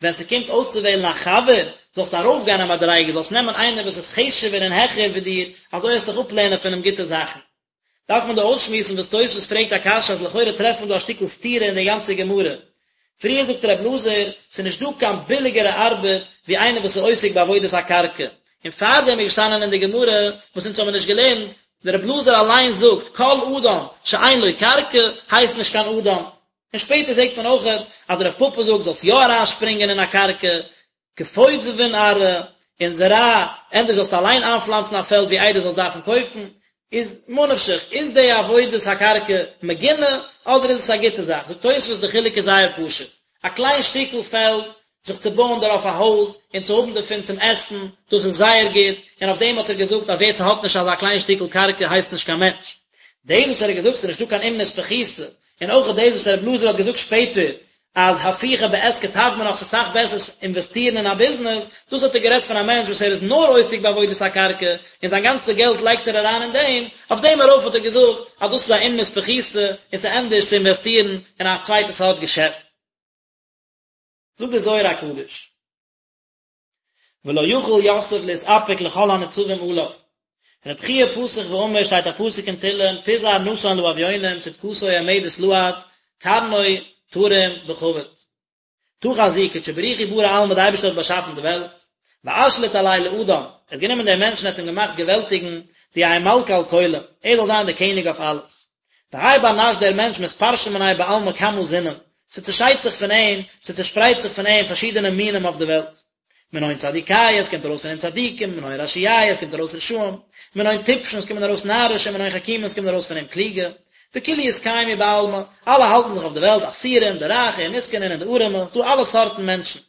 ווען ס'קומט אויסצואוועלן א חבר, זאלסטו ארויפגיין א מדריגה, זאלסט נעמען איינער וואס איז חשוב'ער און העכער ווי דיר, אזוי וועסטו דיך אפלערנען פון אים גוטע זאכן. דארף מען דא אויסשמועסן וואס תוספות פרעגט א קשיא אז לכאורה טרעפט מען דא א שטיקל סתירה אין די גאנצע גמרא. פריער זאגט ר' אלעזר, ס'איז נישט דא קיין ביליגערע ארבעט ווי איינער וואס איז עוסק בעבודת הקרקע. און פארדעם איז געשטאנען אין די גמרא, וואס אונז האבן נישט געלערנט, דער ר' אלעזר אליין זאגט, כל אדם שאין לו קרקע הייסט נישט קיין אדם. און שפעטער זעט מען אויכעט אז רב פפא זאגט זאלסט יא אריינשפרינגען אין א קרקע, כפות זבין ארעא, און זרע, ענדערש זאלסטו אליין איינפלאנצן א פעלד ווי איידער זאלסט דארפן קויפן, איז ממה נפשך, איז די עבודת הקרקע מגונה אדער איז עס א גוטע זאך? זאגט תוספות די חילוק איז זייער פשוט, א קליין שטיקל פעלד, זיך צו בויען דערויף א הויז און צו האבן דערפון צום עסן, דאס איז זייער גוט, און אויף דעם האט ער געזאגט אז ווער ס'האט נישט אזא קליין שטיקל קרקע הייסט נישט קיין מענטש. דאס וואס ער האט געזאגט ס'איז נישטא קיין אומנות פחותה, און אויך דאס וואס רב אלעזר האט געזאגט שפעטער אז הפוכי בעסקא טב מינך ס'איז אסאך בעסער אינוועסטירן אין א ביזנעס, דאס האט ער גערעדט פון א מענטש וואס ער איז נאר עוסק בעבודת הקרקע און זיין גאנצע געלט לייגט ער אריין אין דעם, אויף דעם ארויף האט ער געזאגט אז דאס איז א אומנות פחותה און ס'איז ענדערש צו אינוועסטירן אין א צווייטע סארט געשעפט. זאגט דער זוהר הקדוש. ולא יכול יוסף להתאפק לכל הניצבים עליו. רב חייא פתח ואמר שטייט א פסוק אין תהלים פזר נתן לאביונים צדקתו עומדת לעד קרנו תרים בכבוד. תא חזי קודשא בריך הוא ברא עלמא די אייבערשטער האט באשאפן די וועלט, ואשליט עליה לאדם, ער האט גענומען דעם מענטשן ער האט אים געמאכט געוועלטיגן דיהא מלכא על כולא, ער זאל זיין דער קעניג אויף אלעס. והאי בר נש דער מענטש מתפרשין מניה בעלמא כמה זינין, ס'צעשיידט זיך פון אים, ס'צעשפרייט זיך פון אים פארשידענע מינים אויף די וועלט. מנין צדיקיא, עס קומט ארויס פון אים צדיקים, מנין רשיעיא, עס קומט ארויס רשעים, מנין טיפשין, עס קומען ארויס נארישע, מנין חכימין, עס קומט ארויס פון אים קלוגע. וכולהו אתקיימו בעלמא, אלע האלטן זיך אויף די וועלט, עשירין, די רייכע, ומסכנין, און די ארעמע, ס'דא אלע סארטן מענטשן.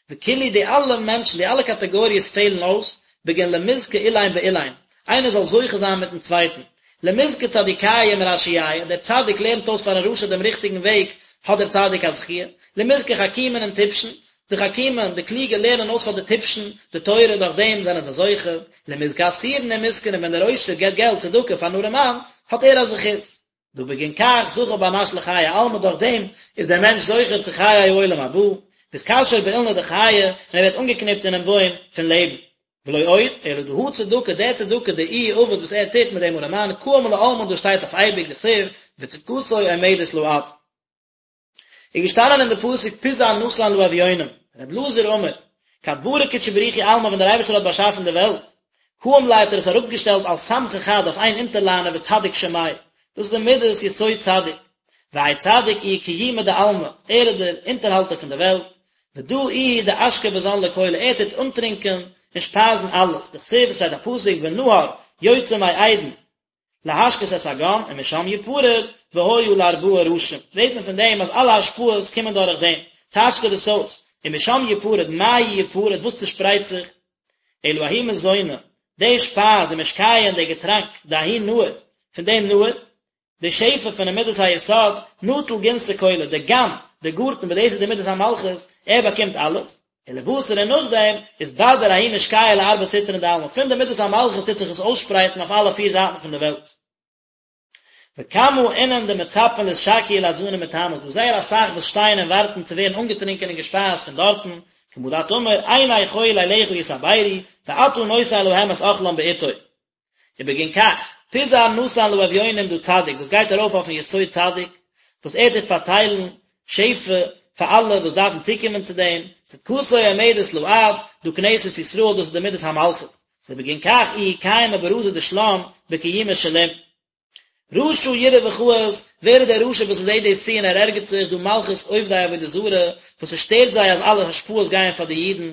וכולהו די אלע מענטשן, די אלע קאטעגאריעס פעלן אויס, בגין למזכי אילין באילין, איינער זאל זוכה זיין מיטן צווייטן. למזכי צדיקיא עם רשיעיא, דער צדיק לערנט אויס פארן רשע דעם ריכטיגן וועג, האט דער צדיק א זכיה. למזכי חכימין עם טיפשין, די חכימין, די קלוגע לערנען אויס פאר די טיפשין די תורה, דורך דעם זענען זיי זוכה. למזכי עשירין עם מסכנין, ווען דער עושר געבט געלט צדקה פארן ארעמאן, האט ער א זכות. דהא בגין כך זכה בר נש לחיי עלמא דורך דעם איז דער מענטש זוכה צו חיי העולם הבא, ואתקשר באילנא דחיי און ער ווערט אנגעקניפט אינעם בוים פון לעבן. ולא עוד, אלא דהא צדקה, דער צדקה דאיהו עביד וואס ער טוט מיט דעם ארעמאן קאים לעלמין דאס שטייט אויף אייביג דכתיב וצדקתו עומדת לעד. איז געשטאנען אין די פסוק פיזר נתן לאביונים, ר' אלעזר אמר, כד ברא קודשא בריך הוא עלמא ווען דער אייבערשטער האט באשאפן די וועלט, קאים ליה האט ער עס אראפגעשטעלט על סמכא חד אויף איין אונטערליינער וצדיק שמיה, דאס איז די מידת יסוד צדיק, והאי צדיק איהו קיומא דעלמא, ער איז דער אונטערהאלטער פון די וועלט, ודא איהו דאשקי וזן לכולא, ער טוט אנטרינקען און שפייזן אלעס, דכתיב, עס שטייט א פסוק ונהר יוצא מעדן, להשקות את הגן ומשם יפרד והיה לארבעה ראשים, זעט מען פון דעם אז אלע השפעות קומען דורך דעם, טייטשט ער דאס אויס, ומשם יפרד, מאי יפרד, וואס צושפרייט זיך? אלא ההוא מזונא, די שפייז, ומשקיא און די געטראנק, דההוא נהר, פון דעם נהר, די שפע פונעם מידת היסוד, נטיל גנתא כולא, די גן, די גארטן וואס דאס איז די מידת המלכות, ער באקומט אלעס, ולבתר און נאכדעם אתבדר ההוא משקיא לארבע סטרין דעלמא, פון די מידת המלכות טוט זיך עס אויסשפרייטן אויף אלע פיר זייטן פון די וועלט. וכמה אינון דמצפין לאתשקיא ולאתזנא מתמה, ס'דא זייער אסאך וואס שטייען און ווארטן צו ווערן אנגעטרונקען און געשפייזט פון דארטן, כמה דאת אמר, עיני כל אליך יתעברו, ואתה נותן להם את אכלם בעתו. ובגין כך, פיזר נתן לאביונים דא צדיק, דאס גייט ארויף אויפן יסוד צדיק, וואס ער טוט פארטיילן שפע פאר אלע וואס דארפן צוקומען צו דעם, צדקתו עומדת לעד, דא כנסת ישראל, דאס איז די מידת המלכות, ובגין כך איהי קיימא ברזא דשלם בקיומא שלים. רשע יראה וכעס, ווער איז דער רשע וואס זעט דאס צו און ער ערגערט זיך, דא מלכות עובדי עבודה זרה, וואס עס שטערט זיי אז אלע השפעות גייען פאר די אידן,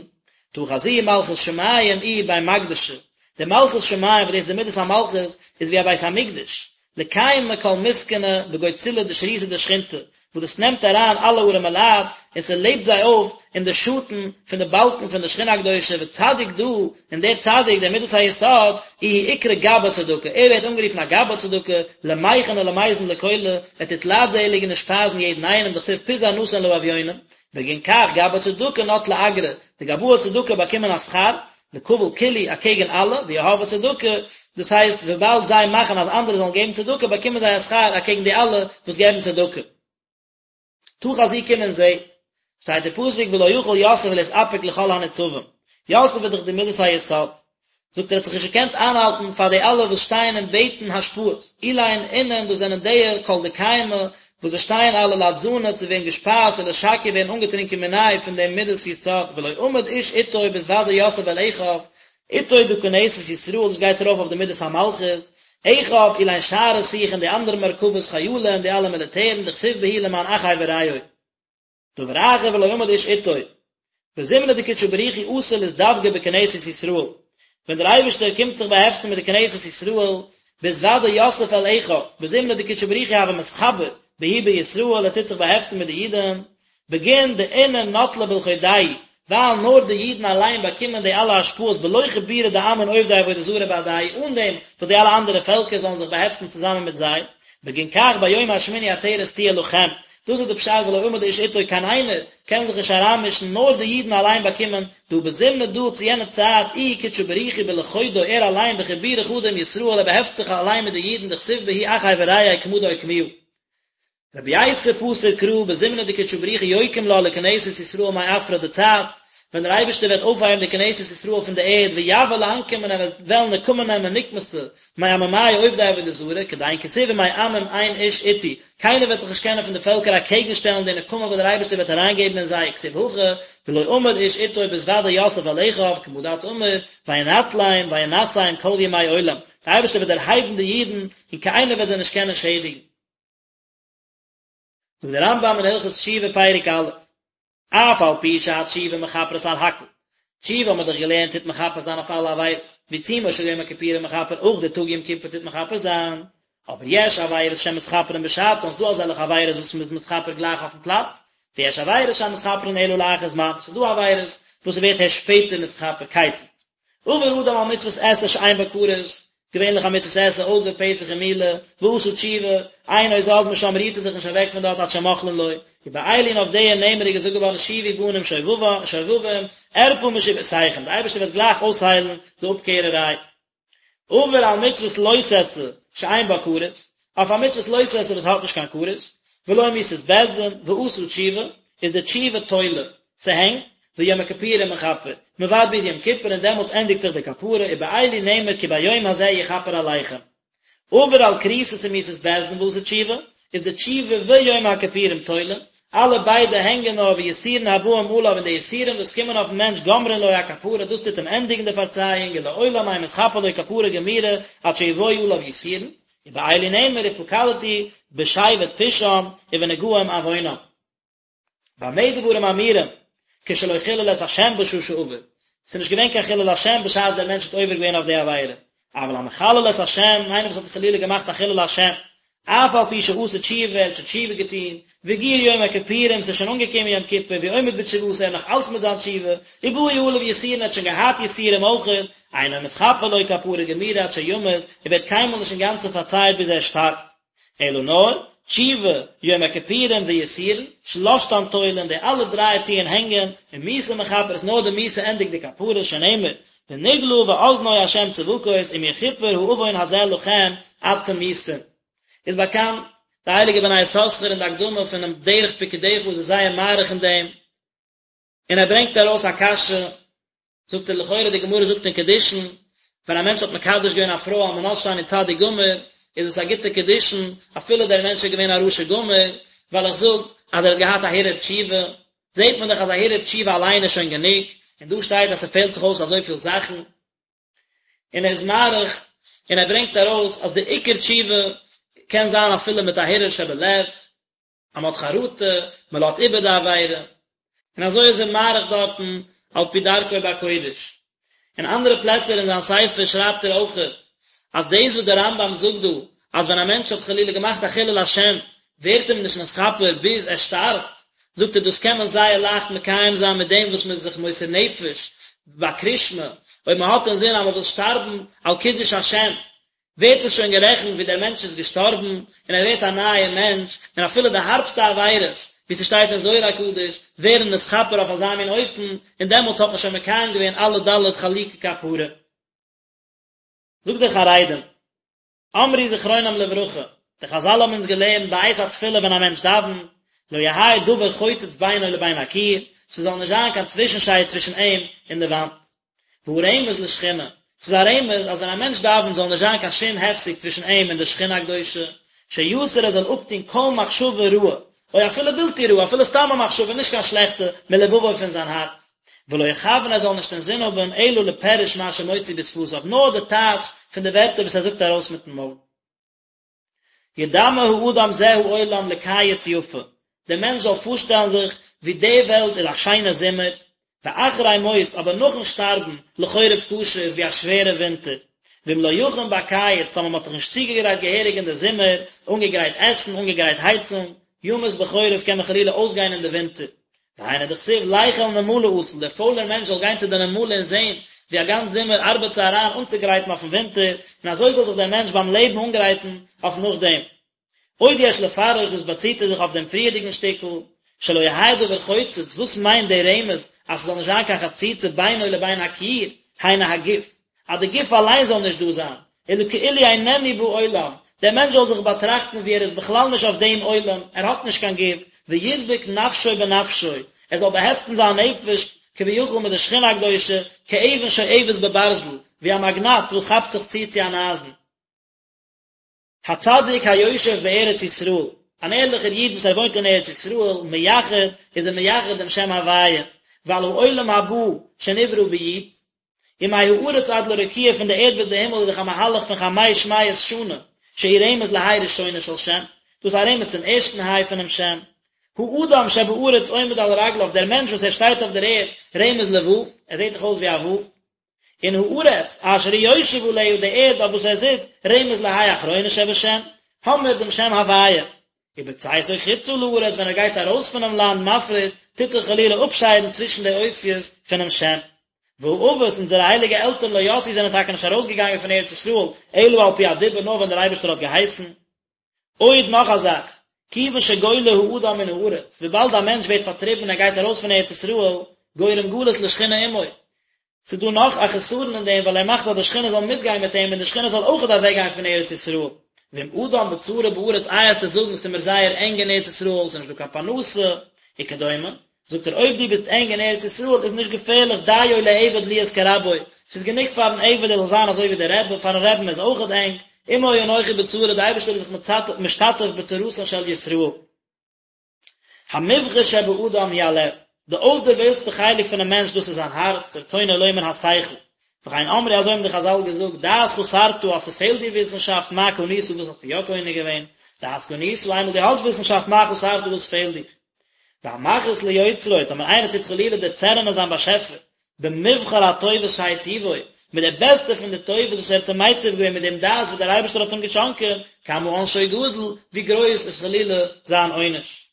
תא חזי מלכות שמים איהי בי מקדשא, די מלכות שמים וואס דאס איז די מידת המלכות איז ווי א בית המקדש, לקיימא כל מסכנא בגו צלא דשריתא דשכינתא, וואס דאס נעמט אריין אלע ארעמע לייט און ס'לעבט זיי אויף אין די שאטן פון די באלקן פון די שכינה הקדושה, וצדיק דא, און דער צדיק, דער מידת היסוד, איהו אקרי גבאי צדקה, ער ווערט אנגערופן א גבאי צדקה, למיכן ולמיזן לכולא, ער טוט לייטזעליגן און שפייזן יעדן איינעם, דכתיב פיזר נתן לאביונים, בגין כך גבאי צדקה נטלי אגרא, די גבאי צדקה באקומען א שכר. לקבל כולהו אקעגן אלע, דיהבי צדקה, דאס הייסט וויבאלד זיי מאכן אז אנדערע זאלן געבן צדקה באקומען זיי א שכר אקעגן די אלע וואס געבן צדקה. תא חזי קום און זע, שטייט אין פסוק ולא יכול יוסף להתאפק לכל הניצבים, יוסף איז דאך די מדת היסוד, זאגט ער האט זיך נישט געקענט איינהאלטן פאר די אלע וואס שטייען און בעטן השפעות, אלין אינון דאס זענען די כל דקיימי וואס זיי שטייען אלע לאתזנא צו ווערן געשפייזט ולאתשקיא ווערן אנגעטרינקען מיניה פון דעם מדת יסוד, ולא עמד איש אתו בהתודע יוסף אל אחיו, אתו דא כנסת ישראל דאס גייט ארויף אויף די מדת המלכות, אחיו אלין שאר רתיכין די אנדערע מרכבות חיילין און די אלע מיליטערן דכתיב בהו למען אחי ורעי. דבר אחר ולא עמד איש אתו. בזמנא דקודשא בריך הוא אתי לאתדבקא בכנסת ישראל, ווען דער אייבערשטער קומט זיך באהעפטן מיט די כנסת ישראל, בהתודע יוסף אל אחיו, בזמנא דקודשא בריך הוא הוה מתחבר בהו בישראל, ער טוט זיך באהעפטן מיט די אידן, בגין דאינון נטלי בלחודייהו, ווייל נאר די אידן אליין באקומען די אלע השפעות בלא חיבורא דעמין עובדי עבודה זרה בהדייהו אן דעם וואס די אלע אנדערע פעלקער זאלן זיך באהעפטן צוזאמען מיט זיי, בגין כך ביום השמיני עצרת תהיה לכם, דאס איז די פשט ולא עמד איש אתו קיין איינער קען זיך נישט אריינמישן נאר די אידן אליין באקומען דהא בזמנא דא צו יענע צייט איהו קודשא בריך הוא בלחודוי ער אליין בחיבורא חדא עם ישראל ער באהעפט זיך אליין מיט די אידן דכתיב בהו אחי ורעי כמה דאוקמוה. רבי ייסא פתר קרא בזמנא דקודשא בריך הוא יוקים לה לכנסת ישראל מעפרא די צייט ווען דער אייבערשטער וועט אויפהייבן די כנסת ישראל פון די ערד ויבא לאנקמא און ער וועט וועלן נקמה נעמען נקמתא מעממיא עובדי עבודה זרה כדין כתיב ומעמים אין איש אתי קיינער וועט זיך נישט קענען פון די פעלקער אקעגן שטעלן די נקמה וואס דער אייבערשטער וועט אריינגעבן אין זיי וכתיב הכא ולא עמד איש אתו בהתודע יוסף אל אחיו כמה דאת אמר וינטלם וינשאם כל ימי עולם דער אייבערשטער וועט דערהייבן די אידן און קיינער וועט זיי נישט קענען שעדיגן. זאגט דער רמב"ם אין הלכות תשובה פרק א', אף על פי שהתשובה מכפרת על הכל, תשובה האבן מיר דאך געלערנט טוט מכפר זיין אויף אלע עבירות, ועיצומו של יום הכיפורים מכפר אויך די טאג יום כיפור טוט מכפר זיין, אבער יש עבירות שמתכפרין בשעתן, ס'דא אזעלכע עבירות וואס מ'איז מתכפר גלייך אויפן פלאץ, ויש עבירות שאין מתכפרין אלא לאחר זמן, ס'דא עבירות וואס ס'ווערט הערשט שפעטער נתכפר, כיצד? עבר אדם על מצוות עשה שאין בה כרת, געווענליך א מצוות עשה אויסער פסח און מילה, ועשה תשובה, אינו זז משם רירט ער זיך נישט אוועק פון דארט עד שמוחלין לו, ובאלו און אויף די נאמר איז געזאגט געווארן שובו בנים שובבים, ארפא משובותיכם, די אייבערשטער וועט גלייך אויסהיילן די אפקערעריי. עבר על מצוות לא תעשה שאין בה כרת, אויף א מצוות לא תעשה וואס האט נישט קיין כרת, ולא מיתת בית דין, ועשה תשובה, איז די תשובה תולה, ס'הענגט, ויום הכיפורים מכפר, מ'ווארט ביז יום כיפור און דעמאלטס ענדיגט זיך די כפרה, ובאלו נאמר כי ביום הזה יכפר עליכם. עבר על כריתות ומיתת בית דין ועשה תשובה, איז די תשובה ויום הכיפורים תולין, אלע ביידע הענגען נאר ויסורין הבאים עליו און די יסורים וואס קומען אויפן מענטש גומרין לו הכפרה דאס טוט אים ענדיגן די פארצייאונג ולעולם אין מתכפר לו כפרה גמורה עד שיבואו עליו יסורין, ובאלו נאמר ופקדתי בשבט פשעם ובנגעים עוונם. במה דברים אמורים כשלא חילל את השם בשעה שעבר, ס'איז נישט געווען קיין חילול השם בשעת דער מענטש האט עובר געווען אויף די עבירה, אבל המחלל את השם, איינער וואס האט חלילה געמאכט א חילול השם, אף על פי שעשה תשובה, ער האט שוין תשובה געטון, והגיע יום הכיפורים, ס'איז שוין אנגעקומען יום כיפור, והוא עומד בתשובתו, ער איז נאך אלץ מיט זיין תשובה, ובאו עליו יסורין, ער האט שוין געהאט יסורים אויכעט, אינו מתכפר לו כפרה גמורה עד שימות, ער ווערט קיינמאל נישט אינגאנצן פארצייט ביז ער שטארבט. אלא נאר, תשובה, יום הכיפורים ויסורין, שלשתן תולין, די אלע דריי טוען הענגען, ומיתה מכפרת, נאר די מיתה ענדיגט די כפרה, שנאמר, ונגלה באזני ה' צבקות אם יכופר העון הזה לכם עד תמותון. איז באקאנט, די הייליגע בני יששכר אין די הקדמה פונעם דרך פקודיך איז ער זייער מאריך אין דעם, און ער ברענגט ארויס א קשיא, זאגט ער לכאורה די גמרא זאגט אין קידושין, ווען א מענטש האט מקדש געווען א פרוי על מנת שאני צדיק גמור, איז עס א גוטע קידושין, אפילו דער מענטש איז געווען א רשע גמור, ווייל איך זאג אז ער האט געהאט א הרהור תשובה, זעט מען דאך אז א הרהור תשובה אליין איז שוין גענוג, און דא שטייט אז ס'פעלט זיך אויס אזויפיל זאכן. און ער איז מאריך און ער ברענגט ארויס אז די עיקר תשובה קען זיין אפילו מיט א הרהור שבלב, אז מען האט חרטה, מען לאזט איבער די עבירה, און אזוי איז ער מאריך דארטן על פי דרכו בקודש. אין אנדערע פלעצער אין זיין ספר שרייבט ער אויכעט אז דאס וואס דער רמב"ם זאגט דא אז ווען א מענטש האט חלילה געמאכט א חילול השם ווערט אים נישט נתכפר ביז ער שטארבט, זאגט ער דאס קען מען זייער לייכט מקיים זיין מיט דעם וואס מען איז זיך מוסר נפש ביי קריאת שמע, אויב מען האט אינזין אז מען וויל שטארבן על קידוש השם, ווערט עס שוין גערעכנט ווי דער מענטש איז געשטארבן און ער ווערט א נייער מענטש, און אפילו די הארבסטע עבירות ווי ס'שטייט אין זוהר הקדוש, ווערן נתכפר אויף אזא מין אופן, און דעמאלטס האט מען שוין מקיים געווען אלע ד' חלוקי כפרה. זאגט דער חרדים, אמרו זכרונם לברכה, די חזל האבן אונז געלערנט בעת התפילה ווען א מענטש דאווענט, לא יהא דבר חוצץ בינו לבין הקיר, ס'זאל נישט זיין קיין צווישנשייד צווישן אים און די וואנט. והוא רמז לשכינה, ס'איז א רמז אז ווען א מענטש דאווענט זאל נישט זיין קיין שום הפסק צווישן אים און די שכינה הקדושה, שיסיר ער זאל אפטון כל מחשבה רעה, או אפילו בלתי רעה, אפילו סתם א מחשבה נישט קיין שלעכטע, מלבבו פון זיין הארץ. ולא יכוון ער זאל נישט אינזין האבן אלא לפירוש מה שמוציא בשפתיו, נאר די טייטש פון די ווערטער וואס ער זאגט ארויס מיטן מויל. ידמה האדם זה העולם לקיץ יפה, דער מענטש זאל פארשטעלן זיך ווי די וועלט איז א שיינע זומער, ואחרי מות, אבער נאכן שטארבן, לחורף קשה איז ווי א שווערע ווינטער. ואם לא יכין בקיץ, טאמער מען האט זיך נישט צוגעגרייט געהעריג אין די זומער, אנגעגרייט עסן, אנגעגרייט הייצונג, ימות בחורף קען מען חלילה אויסגיין אין די ווינטער. והיינו דכתיב לך אל נמלה עצל, דער פוילער מענטש זאל גיין צו די נמלה און זען ווי א גאנץ זומער ארבעט זי אריין אנצוגרייטן אויפן ווינטער, און אזוי זאל זיך דער מענטש ביים לעבן אנגרייטן אויף נאכדעם. עוד יש לפרש דאס באציט ער זיך אויף דעם פריערדיגן שטיקל, שלא יהא דבר חוצץ, וואס מיינט דער רמז אז ס'זאל נישט זיין קיין חציצה בינו לבין הקיר, היינו הגוף, אז די גוף אליין זאל נישט דא זיין, אלא כאילו איננו בעולם, דער מענטש זאל זיך באטראכטן ווי ער איז בכלל נישט אויף דעם עולם, ער האט נישט קיין גוף, וידבק נפשו בנפשו, ער זאל באהעפטן זיין נפש כביכול מיט די שכינה הקדושה, כאבן שואבת בברזל, ווי א מאגנאט וואס כאפט זיך צו צו אן אייזן. הצדיק היושב בארץ ישראל, אן ערליכער איד וואס ער וואוינט אין ארץ ישראל, מייחד, איז ער מייחד דעם שם הוויה, ועל העולם הבא שנברא ביו"ד, ומהארץ עד לרקיע פון די ערד ביז די הימל איז דאך א מהלך פון חמש מאות שנה, שהוא רמז לה' ראשונה של שם, דאס איז א רמז צום ערשטן ה' פונעם שם. האדם שבארץ עומד על רגליו, דער מענטש וואס ער שטייט אויף דער ערד, רמז לו', ער זעט דאך אויס ווי א ו'. און הארץ אשר הוא יושב עליה, די ערד אויף וואס ער זיצט, רמז לה' אחרונה שבשם, האמיר דעם שם הוויה. ובצאתו חוצה לארץ, ווען ער גייט ארויס פונעם לאנד מפריד, טוט ער חלילה אפשיידן צווישן די אותיות פונעם שם. והאבות, אונזערע הייליגע עלטערן לא יצאו זענען טאקע נישט ארויסגעגאנגען פון ארץ ישראל, אלא על פי הדיבור נאר ווען דער אייבערשטער האט געהייסן. עוד נאך א זאך, כיוון שגולה האדם מן הארץ, וויבאלד א מענטש ווערט פארטריבן און ער גייט ארויס פון ארץ ישראל, גורם גלות לשכינה עמו. ס'איז דא נאך א חסרון אין דעם ווייל ער מאכט אז די שכינה זאל מיטגיין מיט אים און די שכינה זאל אויכעט אוועקגיין פון ארץ ישראל. ואם אדם בצרה בארץ איי וועסטו זאגן ס'איז מיר זייער ענג אין ארץ ישראל, ס'איז נישט דא קיין פרנסה, וכדומה, זאגט ער אויב דו ביסט ענג אין ארץ ישראל איז נישט געפערליך דיו לעבד להיות כרבו, ס'איז גענוג פארן עבד ער זאל זיין אזוי ווי דער רבי, פארן רעבן איז אויכעט ענג, עמו אנכי בצרה, די אייבערשטער איז זיך משתתף בצרתן של ישראל. המובחר שבאדם הוא הלב, די אויסדערוועלטסטע חלק פונעם מענטש דאס איז זיין הארץ, רצונו לומר השכל, וכן אמרו אזוי האבן די חזל געזאגט, דעת חסרת אז ס'פעלט דיר וויסנשאפט מה קנית וואס האסטו יא קונה געווען, דעת קנית איינמאל דו האסט וויסנשאפט מה חסרת וואס פעלט דיך. והמכעיס ליוצרו, טאמער איינער טוט חלילה דערצערענען זיין באשעפער, במובחר הטובות שהיטיבו, מיט די בעסטע פון די טובות וואס ער האט אים מייטיב געווען מיט דעם דעת וואס דער אייבערשטער האט אים געשאנקען, כמה עונשו גדול, ווי גרויס איז חלילה זיין עונש.